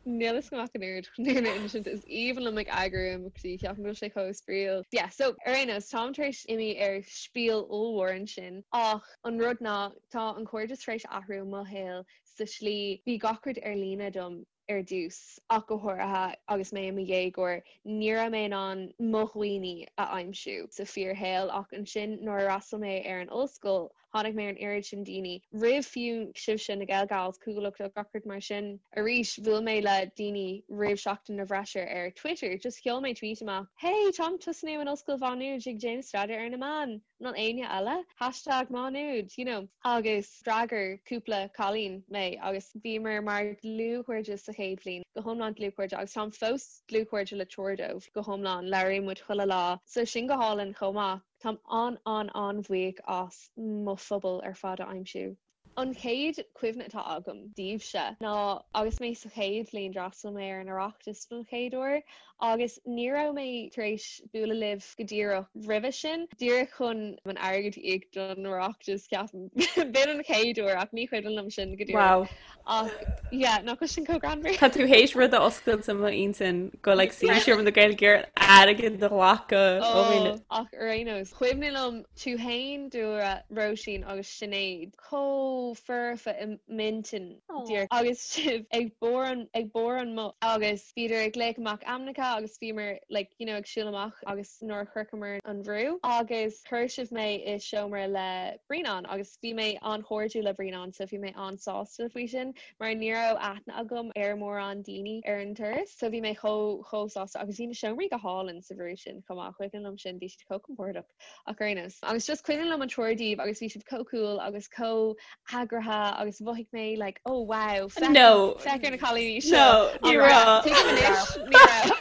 Níl 'fhios agam ach an oiread chun é a insint, is aoibhinn liom ag eagrú imeachtaí, ceapaim go bhfuil sé chomh spraíúil. Yeah, so ar aon nós, táim tar éis imí ar spiel ollmhór ansin ach an rud ná tá an cairdeas tar éis athrú i mo shaol sa slí, bhí gach rud ar líne dom ar dtús, ach go háirithe agus mé i mo dhéagóir, ní raibh mé in ann mo dhaoine a aimsiú sa fíorshaol ach ansin nuair a fhreastail mé ar an ollscoil, tháinig mé ar an oiread sin daoine, roimh fiú sibhse, na Gaelgals, Cuallacht agus gach rud mar sin. Arís, bhuail mé le daoine roimh Seachtain na bhFreisear ar Twitter, just sheol mé tweet amach, Hey, táim ag tosnú in Ollscoil Mhá Nuad ag déanamh staidéar ar na meáin! An bhfuil éinne eile? Hashtag Má Nuad, you know. Agus d'fhreagair cúpla cailín mé agus bhíomar mar dhlúthchairde sa chéad bhliain, go hiomlán dlúthchairde agus táim fós dlúthchairde le triúr dóibh go hiomlán, labhraíonn muid chuile lá. So sin go hálainn chomh maith. Táim an-an-an-bhuíoch as mo phobal ar fad a aimsiú. An chéad chuimhne atá agam daoibhse ná agus mé sa chéad bhliain d'fhreastail mé ar an Oireachtas don chéad uair agus ní raibh mé tar éis bualadh libh go díreach roimhe sin, díreach chun an airgead a íoc don Oireachtas ceapaim. B'in an chéad uair ach ní cuimhin liom sin go díreach. Wow. Ach yeah, nach bhfuil sin chomh greannmhar? Tá tú théis rud a oscailt i m'intinn go like sinsir na Gaeilge airgead a ghlacadh ó dhaoine. Oh, ach ar aon nós, cuimhin liom Tú fhéin, Dúlra, Róisín agus Sinéad chomh foirfe i m'intinn díreach agus sibh ag barr an ag barr an mbus agus bhíodar ag glaoch amach ainmneacha agus bhíomar like you know ag siúl amach agus nuair a shroicheamar an bhrú agus chuir sibh mé i seomra le Brianán agus bhí mé an-chairdiúil le Brianán so bhí mé an-sásta faoi sin mar ní raibh aithne agam ar mórán daoine ar an turas so bhí mé chomh chomh sásta agus bhí na seomraí go hálainn sa bhrú sin chomh maith cuimhin liom sin bhí siad chomh compordach. Ach ar aon nós. Agus just cuimhin liom an triúr díobh agus bhí sibh chomh cool agus chomh heagraithe agus mhothaigh mé like oh wow féach No. féach ar na cailíní seo. No, ní raibh. Tuigim anois, ní raibh.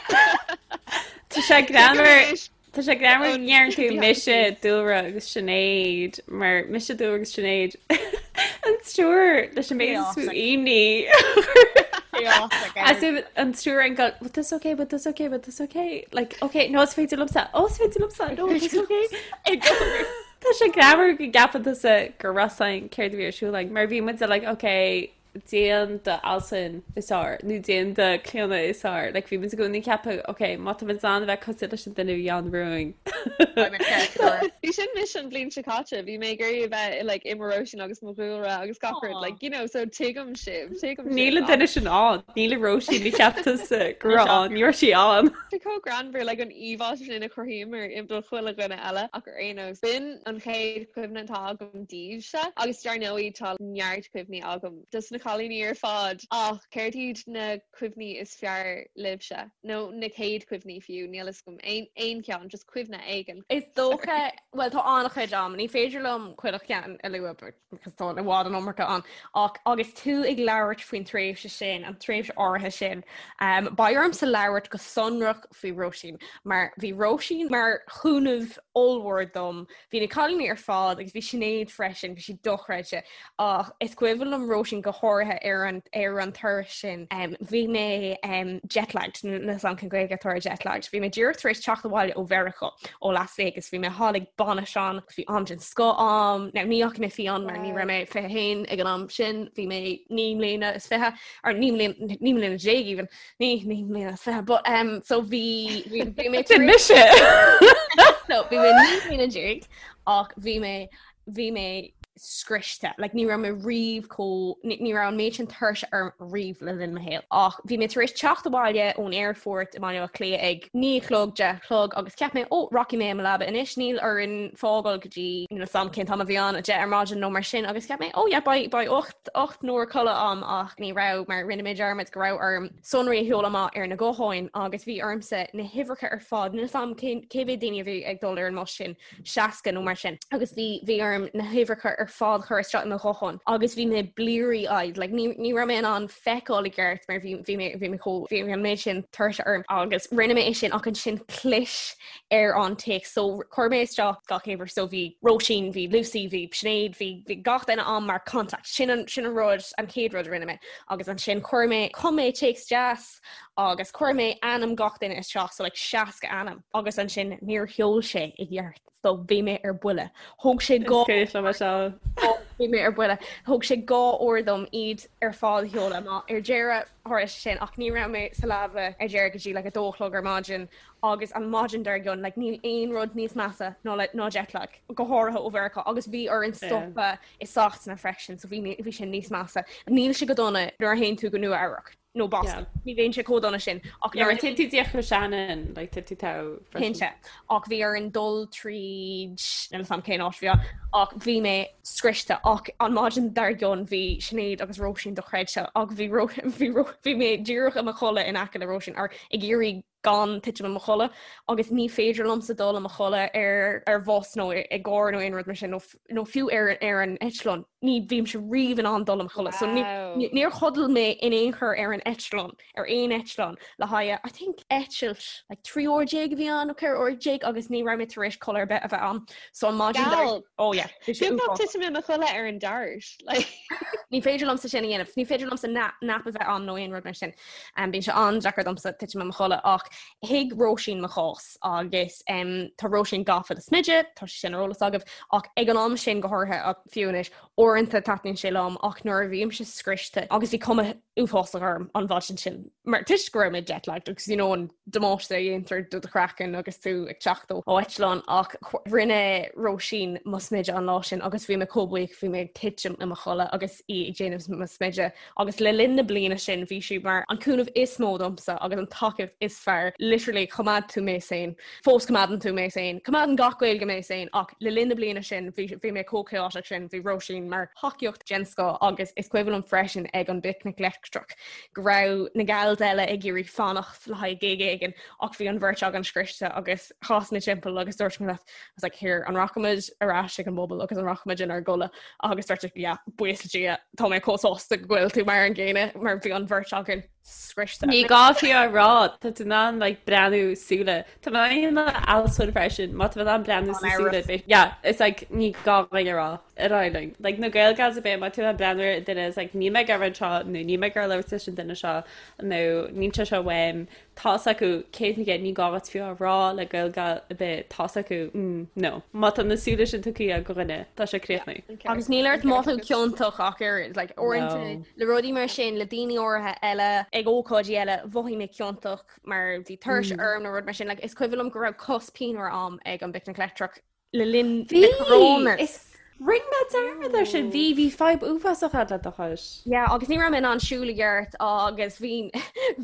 Tá sé Tuigim greannmhar anois. Tá sé greannmhar Ón go ndeireann tú behind the mise, scenes. Dúlra agus Sinéad mar mise, Dúlra agus Sinéad an triúr leis an méid is mó imní. As if an triúr ag gabháil, but that's okay, but that's okay, but that's okay. Like, okay, no, is féidir liomsa, oh, is féidir liomsa, no, it's okay. Tá sé greannmhar go gceapann tusa go raibh 's againn céard a bhí ar siúl againn, mar bhí muid like, okay, déan do Altan is fearr nó déan do Clíona is fearr. Like, bhí muid i gcónaí ag ceapadh, okay, má tá muid in ann a bheith cosúil leis an duine a bhí ann romhainn. Bhí sin mise an bhliain seo caite, bhí mé ag iarraidh a bheith like, i mo Róisín agus mo Dhúlra agus gach rud, like, you know, so tuigim sibh, tuigim sibh. Níl an duine sin ann, níl an Róisín a cheap tusa go raibh ann, ní raibh sí ann. Tá chomh greannmhar like an íomhá sin a chruthaíomar i do chuile dhuine eile ach ar aon nós, b'in an chéad chuimhne atá agam daoibhse agus dar ndóigh tá neart cuimhní agam dos na cailíní ar fad ach céard iad na cuimhní is fearr libhse? Nó na chéad chuimhní fiú, níl 'fhios agam, aon aon cheann, just cuimhne éigin. Is dócha, bhuel tá an-chuid ann, ní féidir liom chuile cheann a lua because tá i bhfad an iomarca ann, ach agus tú ag labhairt faoin tréimhse sin, an tréimhse áirithe sin, um, beidh ormsa labhairt go sonrach faoi Róisín, mar bhí Róisín mar chúnamh ollmhór dom Bhí na cailíní ar fad agus bhí Sinéad freisin, bhí sí dochreidte. Ach is cuimhin liom Róisín go háirithe ar an ar an turas sin. Um, bhí mé um, jetlagged, níl 'fhios a'm cén Gaeilge atá ar jetlagged. Bhí mé díreach tar éis teacht abhaile ó Mheiriceá, ó Las Vegas. Bhí mé thall ag bainis ann, bhí am den scoth a'm. Now, ní fhaca mé Fionn mar ní raibh mé 21 ag an am sin, bhí mé 9 mbliana is 20, or 9 mbliana 9 mbliana déag even. Ní 9 mbliana is 20 but um, so bhí bhí bhí mé Sin mise! So bhí mé 9 mbliana déag ach bhí mé bhí mé. scriosta. Like ní raibh mé riamh chomh, ní raibh an méid sin tuirse orm riamh le linn mo shaoil. Ach bhí mé tar éis teacht abhaile ón aerfort i mBaile Átha Cliath ag 9 a chlog, 10 a chlog agus cheap mé, ó, rachaidh mé i mo leaba anois, níl orainn fágáil go dtí, níl 'fhios a'm cén t-am a bhí ann, 10 ar maidin nó mar sin agus cheap mé, oh yeah, beidh, beidh 8, 8 n-uair codladh a'm ach ní raibh mar rinne mé dearmad go raibh orm sonraí a sheoladh amach ar na gutháin agus bhí ormsa na huimhreacha ar fad, níl 'fhios a'm cén, cé mhéad daoine a bhí ag dul ar an mbus sin, 60 nó mar sin agus bhí bhí orm na huimhreacha ar fad a chur isteach i mo ghuthán agus bhí mé bleary eyed like ní ní raibh mé in ann feiceáil i gceart mar bhí bhí mé bhí mé chomh bhí an méid sin tuirse orm agus rinne mé é sin ach ansin chlis ar an téacs so chuir mé isteach gach uimhir so bhí Róisín bhí Lucy bhí Sinéad bhí bhí gach duine ann mar contact sin an sin an rud an chéad rud a rinne mé agus ansin chuir mé chum mé téacs deas agus chuir mé ainm gach duine isteach so like 60 ainm agus ansin níor sheol sé i gceart so bhí mé ar buile. Thóg sé dhá bhí mé ar buile. Thóg sé 2 uair dom iad ar fad a sheoladh amach ar deireadh tharla sé sin ach ní raibh mé sa leaba ar deireadh go dtí like 2 a chlog ar maidin agus an maidin dár gcionn like níl aon rud níos measa ná le ná jetlag go háirithe ó Mheiriceá agus bhí orainn stopadh i Sasana freisin so bhí bhí sé níos measa. Níl sé go dona nuair a théann tú go Nua Eabhrac. nó Boston. Ní bhíonn sé chomh dona sin ach nuair a téann tú díreach go Shannon, like tá tú togha freisin. Cinnte. Ach bhí orainn dul tríd, níl 'fhios a'm cén áit a bhí ann, ach bhí mé scriosta ach an maidin dár gcionn bhí Sinéad agus Róisín dochreidte ach bhí bhí bhí mé díreach i mo chodladh in aice le Róisín ar ag iarraidh gan titim i mo chodladh agus ní féidir liomsa dul i mo chodladh ar ar bhus nó i gcarr nó aon rud mar sin nó nó fiú ar ar an eitleán. Ní bhímse riamh in ann dul i mo chodladh. So ní níor chodail mé in aon chor ar an eitleán, ar aon eitleán le haghaidh I think eitilt like 13 uair a bhí ann nó 14 uair agus ní raibh mé tar éis codladh ar bith a bheith ann. So an maidin dar Oh yeah. Bhí sé uafásach. Titim i mo chodladh ar an dart. Like. Ní féidir liomsa sin a dhéanamh. Ní féidir liomsa nap a bheith ann nó aon rud mar sin. Bíonn sé an-deacair domsa titim i mo chodladh ach thuig Róisín mo chás agus tá Róisín gafa le smideadh, tá sé sin ar eolas agaibh, ach ag an am sin go háirithe ach fiú anois, uaireanta taitníonn sé liom ach nuair a bhímse scriosta agus bhí cuma uafásach orm an mhaidin sin mar toisc go raibh mé jet-lagged agus you know an damáiste a dhéantar do do chraiceann agus tú ag teacht ó eitleán ach rinne Róisín mo smideadh an lá sin agus bhí mé chomh buíoch bhí mé ag titim i mo chodladh agus í ag déanamh mo smideadh agus le linn na bliana sin bhí sí mar an cúnamh is mó domsa agus an tacaíocht is fearr. Literally choimeád tú mé sane. Fós coimeádann tú mé sane. Coimeádann gach Gaeilge mé sane ach le linn na bliana sin bhí bhí mé chomh chaotic sin, bhí Róisín mar thacaíocht den scoth agus is cuimhin liom freisin ag an bPicnic Leictreach go raibh na gals eile ag iarraidh fanacht le haghaidh gig éigin ach bhí an bheirt againn scriosta agus chas mé timpeall agus dúirt mé leat I was like here an rachaimid ar ais ag an bpuball agus an rachaimid inár gcodladh agus dúirt tú yeah buíochas le Dia tá mé chomh sásta go bhfuil tú mar an gcéanna mar bhí an bheirt againn scriosta. Ní gá fiú a rá, tá tú in ann like breathnú súile. Tá mé in ann alsún freisin, má tá mé in ann breathnú sa súile bit. Yeah, it's like ní gá dhuine a rá ar aghaidh linn. Like na Gael Gals a bit má tú in ann breathnú ar duine is like níl mé ag iarraidh seo nó níl mé ag iarraidh labhairt leis an duine seo nó níl sé seo uaim. Tá's acu 100%, ní gá duit fiú a rá le Gael Gal ar bith, tá's acu, mm, no. Má tá na súile sin tugtha ag dhuine, tá sé críochnaithe. Agus níl ort mothú ciontach ach ar, like, uaireanta le rudaí mar sin, le daoine áirithe eile, ag ócáidí eile, mhothaigh mé ciontach mar bhí tuirse orm nó rud mar sin. Like, is cuimhin liom go raibh cos pianmhar a'm ag an bPicnic Leictreach le linn na Coronas. Is rinne mé dearmad air sin. Bhí, bhí fadhb uafásach agat le do chois. Yeah, agus ní raibh mé in ann siúl i gceart agus bhí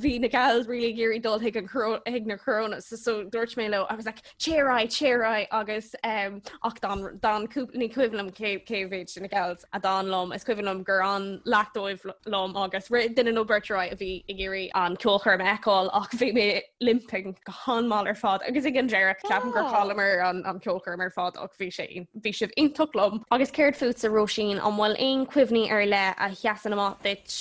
bhí na gals really ag iarraidh dul chuig an chuig na Coronas so, so dúirt mé leo, I was like, téir ar aghaidh, téir ar aghaidh agus um, ach d'fhan d'fhan cúpla ní cuimhin liom cé cé mhéad de na gals a d'fhan liom, is cuimhin liom gur fhan leath dóibh liom agus rith duine nó beirt ar aghaidh a bhí ag iarraidh an ceolchoirm a fheiceáil ach bhí mé limping go han-mhall ar fad agus ag an deireadh ceapaim gur chailleamar an an ceolchoirm ar fad ach bhí sé bhí sibh iontach liom. Agus céard fútsa Róisín, an bhfuil aon cuimhní ar leith a sheasann amach duit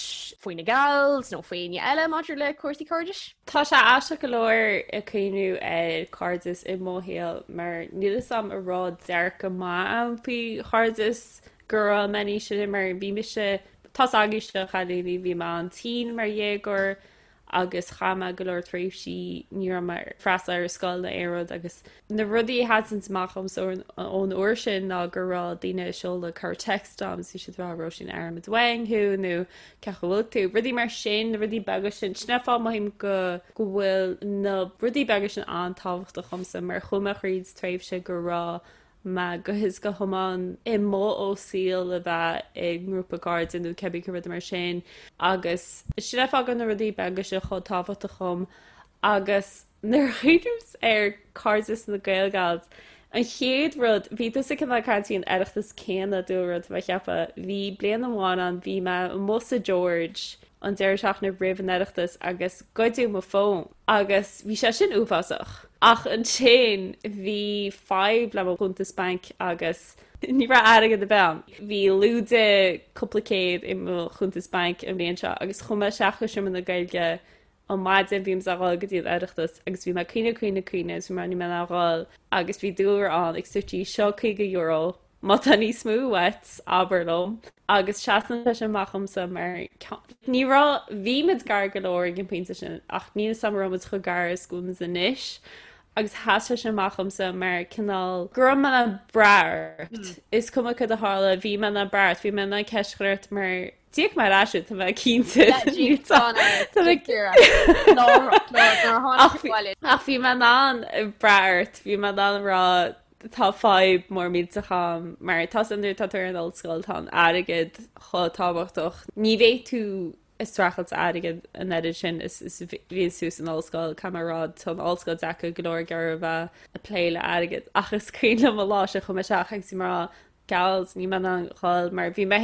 faoi na gals nó faoi éinne eile maidir le cúrsaí cairdis? Tá sé aisteach go leor ag cuimhniú ar cairdeas i mo shaol mar níl fhios a'm an raibh dearcadh maith a'm faoi chairdeas go raibh mé níos sine mar bhí mise tá's agaibhse a chailíní bhí mé an-tinn mar dhéagóir agus chaith mé go leor tréimhsí ní raibh mé ag freastal ar scoil nó aon rud agus na rudaí a sheasann amach dhomsa ón uair sin ná go raibh daoine ag seoladh cur text dom is bhí siad ag rá Róisín airímid uainn thú nó cén chaoi a bhfuil tú rudaí mar sin na rudaí beaga sin sin an fáth mothaím go go bhfuil na rudaí beaga sin an-tábhachtach dhomsa mar chuaigh mé thríd tréimhse go raibh. mé go huile is go hiomlán amuigh ó saol a bheith i ngrúpa cairde nó cibé cén rud mar sin agus sin é fáth go na rudaí beaga seo chomh tábhachtach dhom agus nuair a chuimhnímse ar cairdeas na Gaelgals an chéad rud bhí tusa cineál ag caint faoin Oireachtas céanna dúlra tá mé ag ceapadh bhí bliain amháin ann bhí mé amuigh sa George an deireadh seachtaine roimh an Oireachtas agus goideadh mo fón agus bhí sé sin uafásach. Ach ansin bhí fadhb le mo chuntas bainc agus ní raibh airgead ar bith ann. Bhí lúide cúpla céad i mo chuntas bainc an bhliain seo agus chuaigh mé isteach go Seomra na Gaeilge an maidin bhí mé ag dhul go dtí an Oireachtas agus bhí mé ag caoineadh caoineadh caoineadh agus bhí mé níl mé in ann dhul agus bhí Dúlra ann ag suití seo €50 Má tá níos mó uait, abair liom. Agus seasann sé sin amach dhomsa mar ní raibh, bhí muid gar go leor ag an bpointe sin ach níl 'fhios a'm an raibh muid chomh gar is go bhfuil muid anois. Agus sheas sé sin amach dhomsa mar cineál go raibh mé in ann brath ort. Is cuma cad a tharla, bhí mé in ann brath ort, bhí mé in ann ceist a chur ort mar D'íoc mé ar ais tá mé cinnte. Ach bhí mé in ann brath ort, bhí mé in ann rá tá fadhb mór millteach a'm mar tá san nuair atá tú ar an ollscoil tá an airgead chomh tábhachtach. Ní bheidh tú ag streachailt airgead an oiread sin is is bhíonn tú san ollscoil caithfidh mé a rá tá an ollscoil deacair go leor ag iarraidh a bheith ag plé le airgead ach is cuimhin liom an lá sin chuaigh mé isteach agus bhí mé ag rá gals níl mé in ann dhul mar bhí mé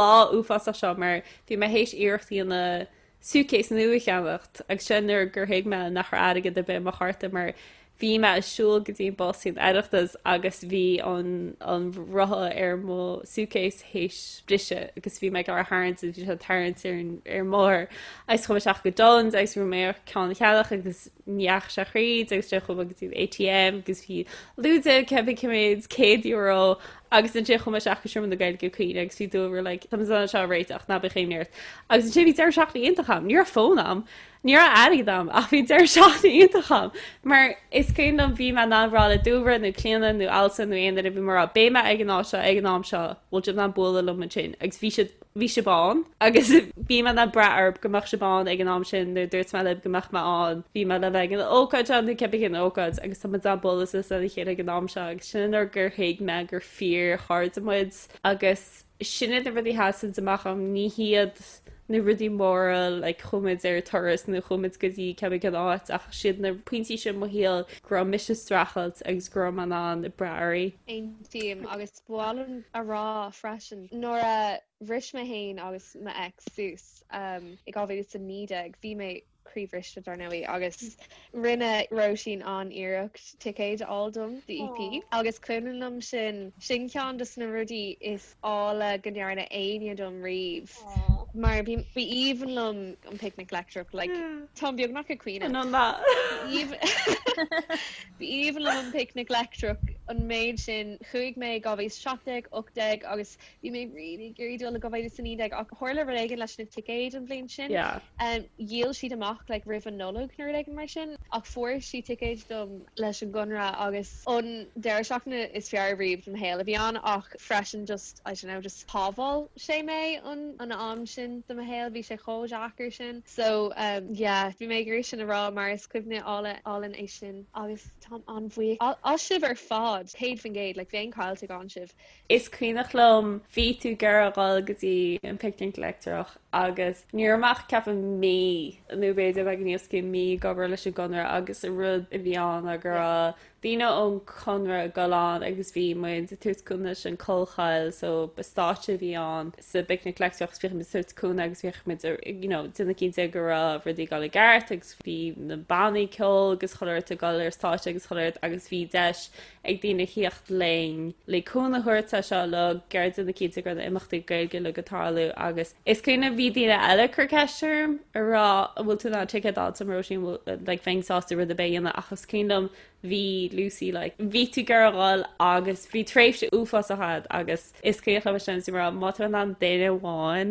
lá uafásach seo mar bhí mé théis iarracht a dhéanamh suitcase nua a cheannacht agus sin nuair gur thuig mé nach raibh airgead ar bith i mo chárta mar bhí mé ag siúl go dtí an bus san Oireachtas agus bhí an an rotha ar mo suitcase théis briseadh agus bhí mé ag iarraidh tharraingt agus bhí sé ag tarraingt ar an ar an mbóthar agus chuaigh mé isteach go Dunnes agus bhí mé ar ceann a cheannach agus ní dheachaigh sé thríd agus ansin chuaigh mé go dtí an ATM agus bhí lúide cibé cé mhéad €100 agus ansin chuaigh mé isteach go Seomra na Gaeilge ag caoineadh agus bhí Dúlra like tá muid in ann seo a réiteach ná bíodh imní ort agus ansin bhí deireadh seachtaine iontach a'm ní raibh fón a'm ní raibh airgead a'm ach bhí deireadh seachtaine iontach a'm mar is cuimhin liom bhí mé in ann rá le Dúlra nó Clíona nó Alison nó aon duine bhí mé ag rá beidh mé ag an áit seo ag an am seo bhfuil sibh in ann bualadh liom ansin agus bhí siad bhí sibh ann agus bhí mé in ann brath oraibh go mbeadh sibh ann ag an am sin nuair a dúirt mé libh go mbeadh mé ann. Bhí mé le bheith ag an ócáid seo nó cibé cén ócáid agus tá muid in ann bualadh suas lena chéile ag an am seo agus sin an uair gur thuig mé gur fíor-chairde muid agus sin iad na rudaí a sheasann amach dom, ní hiad na rudaí móra like chuaigh muid ar turas nó chuaigh muid go dtí cibé cén áit ach siad na pointí sin i mo shaol go raibh mise ag streachailt agus go raibh mé in ann brath oraibh. Aontaím agus Ba mhaith liom a rá freisin, nuair a bhris mé féin agus mo ex suas i 2019, bhí mé croíbhriste dar ndóigh agus rinne Róisín an-iarracht ticéid a fháil dom do EP agus cuimhin liom sin, sin ceann de na rudaí is áille go ndearna éinne dom riamh mar bhí ba aoibhinn liom an Picnic Leictreach like táim beagnach ag caoineadh. Ba aoibhinn liom an Picnic Leictreach an méid sin. Chuaigh mé i 2017, 18 agus bhí mé really ag iarraidh dul i 2019 ach tharla rud éigin leis na ticéid an bhliain sin. Dhíol siad amach like roimh an Nollaig nó rud éigin mar sin ach fuair sí ticéid dom leis an gConradh agus an deireadh seachtaine is fearr riamh de mo shaol a bhí ann ach freisin just I don't know just shábháil sé mé an an am sin de mo shaol bhí sé chomh deacair sin. So yeah, bhí mé ag iarraidh sin a rá mar is cuimhne álainn é sin agus táim an-bhuíoch as sibh ar fad, 100%, like bheinn caillte gan sibh. Is cuimhneach liom bhí tú ag iarraidh dhul go dtí an Picnic Leictreach agus ní raibh mé ach ceapaim mí nó b'fhéidir beagán níos mó mí ag obair leis an gConradh agus an rud a bhí ann ná go raibh daoine ón Chonradh ag dul ann agus bhí muid ag tabhairt cúnamh leis an Collchoill so ba stáitse a bhí ann sa bPicnic Leictreach agus bhíodh muid ag tabhairt cúnamh agus bhíodh muid you know déanamh cinnte go raibh rudaí ag dul i gceart agus bhí na bannaí ceoil agus chuile shórt ag dul ar stáitse agus chuile shórt agus bhí deis ag daoine theacht linn le cúnamh a thabhairt é seo le gur déanamh cinnte go raibh na imeachtaí Gaeilge uilig ag tarlú agus is cuimhin bhí daoine eile ag cur ceist orm ag rá an bhfuil tú in ann ticéad a fháil dom Róisín like bheinn sásta rud ar bith a dhéanamh ach is cuimhin liom bhí Lucy like bhí tú ag iarraidh dhul agus bhí tréimhse uafásach a'd agus is cuimhin liom sin is mar má tá in ann duine amháin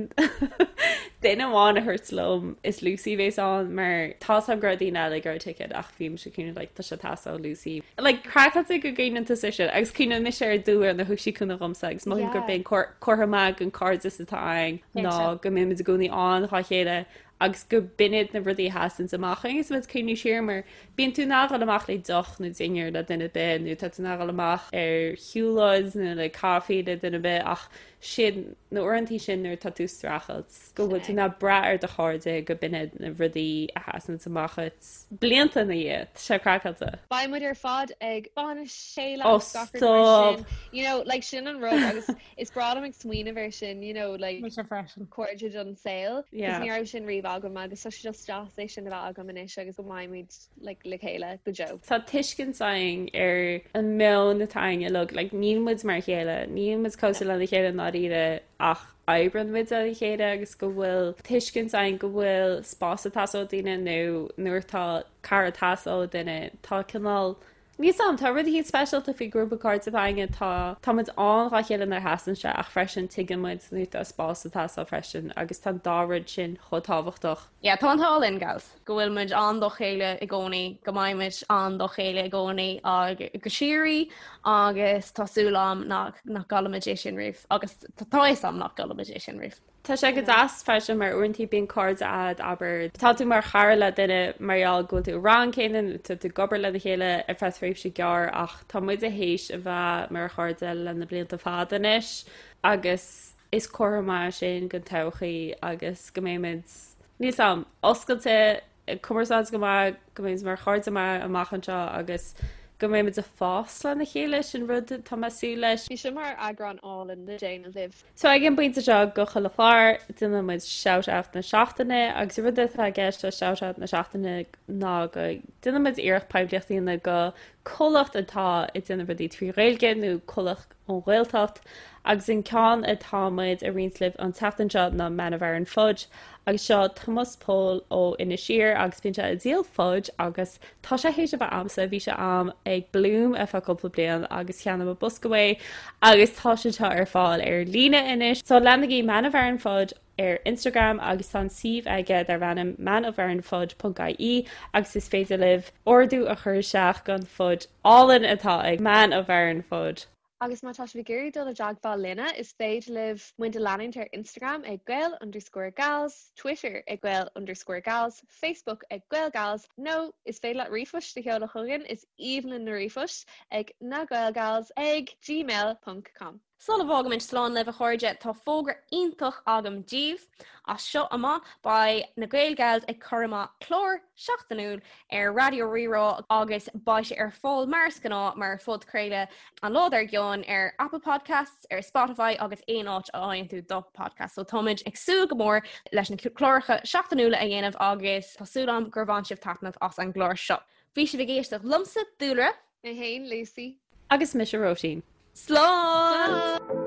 duine amháin a thabhairt liom is Lucy a bhéas ann mar tá 's a'm go raibh daoine eile ag iarraidh ticéad ach bhí mise cineál like tá sé ag teastáil ó Lucy like craiceáilte go gcuimhneann tusa sin agus cuimhneann mise ar Dúlra nuair a thug sí cúnamh dhomsa agus mothaím gurb é an comhartha maith den cairdeas atá againn ná go mbímid i gcónaí ann dhá chéile. agus go b'in iad na rudaí a sheasanns amach agus muid ag cuimhniú siar mar bíonn tú in ann dhul amach le deoch nó dinnéar le duine ar bith nó tá tú in ann dhul amach ar shiúlóid nó le caife le duine ar bith ach sin na uaireantaí sin nuair atá tú ag streachailt go bhfuil tú in ann brath ar do chairde go b'in iad na rudaí a sheasanns amach dhuit blianta ina dhiaidh. Tá sé craiceáilte. Beidh muid ar fad ag bainis chéile Oh agus gach rud mar stop! sin. You know, like sin an rud agus is breá liom ag smaoineamh air sin, you know, like Mise freisin. cairde don saol. 'Cause Yeah. ní raibh sin riamh agam agus tá sé just deas é sin a bheith agam anois agus go mbeidh muid like le chéile go deo. Tá tuiscint againn ar an meon atá againn uilig, like níl muid mar a chéile, níl muid cosúil lena chéile i ndáiríre ach oibreann muid le chéile agus go bhfuil tuiscint againn go bhfuil spás ag teastáil ó daoine nó nuair atá cara ag teastáil ó duine tá cineál Níl 's a'm, tá rud eicínt speisialta faoi grúpa cairde atá againne, tá tá muid ann dhá chéile nuair a theastaíonn sé ach freisin tuigeann muid nuair atá spás ag teastáil freisin agus tá an dá rud sin chomh tábhachtach. Yeah, tá an t-ádh linn, gals, go bhfuil muid ann dá chéile i gcónaí, go mbeidh muid ann dá chéile i gcónaí ag go síoraí agus tá súil a'm nach nach gcaillfimid é sin riamh agus tá a fhios a'm nach gcaillfimid é sin riamh. Tá sé go deas freisin mar uaireanta bíonn cairde a'd, abair, tá tú mar chara le duine mar gheall go bhfuil tú i rang céanna nó tá tú ag obair lena chéile ar feadh tréimhse gearr ach tá muide théis a bheith mar chairde le na blianta fada anois agus is comhartha maith é sin don todhchaí agus go mbeimid, níl 's a'm, oscailte ag cumarsáid go maith, go mbeimid mar chairde maith amach anseo agus go mbeimid ag fás lena chéile, sin rud atá mé ag súil leis. Bhí seo mar eagrán álainn le déanamh libh. So ag an bpointe seo de chuile chlár, déanann muid shout out na seachtaine agus an rud atá i gceist le shout out na seachtaine ná go déanann muid iarracht poiblíocht a dhéanamh do comhlacht atá ag déanamh rudaí trí Ghaeilge nó comhlacht ón Ghaeltacht agus an ceann atá muid a roinnt libh an tseachtain seo ná Man of Aran Fudge agus seo Tomás Pól ó Inis Oírr agus bíonn sé ag díol fudge agus tá sé théis a bheith a'msa, bhí sé a'm ag Bloom ar feadh cúpla bliain agus cheannaigh mé bosca uaidh agus tá sé seo ar fáil ar líne anois. So leanaigí Man of Aran Fudge ar Instagram agus tá an suíomh aige darb ainm manofaranfudge ponc ie agus is féidir libh ordú a chur isteach don fudge álainn atá ag Man of Aran Fudge. Agus má tá sibh ag iarraidh dul i dteagmháil linne, is féidir libh muid a leanúint ar Instagram ag Gael underscore Gals, Twitter ag Gael underscore Gals, Facebook ag GaelGals, nó is féidir leat ríomhphost a sheoladh chugainn, is aoibhinn linn na ríomhphoist, ag nagaelgals ag gmail ponc com. Sula bhfágaimid slán libh, a chairde, tá fógra iontach agam daoibh. As seo amach, beidh na Gael Gals ag cur amach clár seachtainiúil ar Raidió Rí-Rá agus beidh sé ar fáil mar is gnáth mar phodchraoladh an lá dár gcionn ar Apple Podcasts, ar Spotify agus aon áit a fhaigheann tú do podcast. So táimid ag súil go mór leis na cláracha seachtainiúla a dhéanamh agus tá súil agam gur bhain sibh taitneamh as an gclár seo. Bhí sibh ag éisteacht liomsa, Dúlra. Mé féin, Lucy. Agus mise, Róisín. Slán!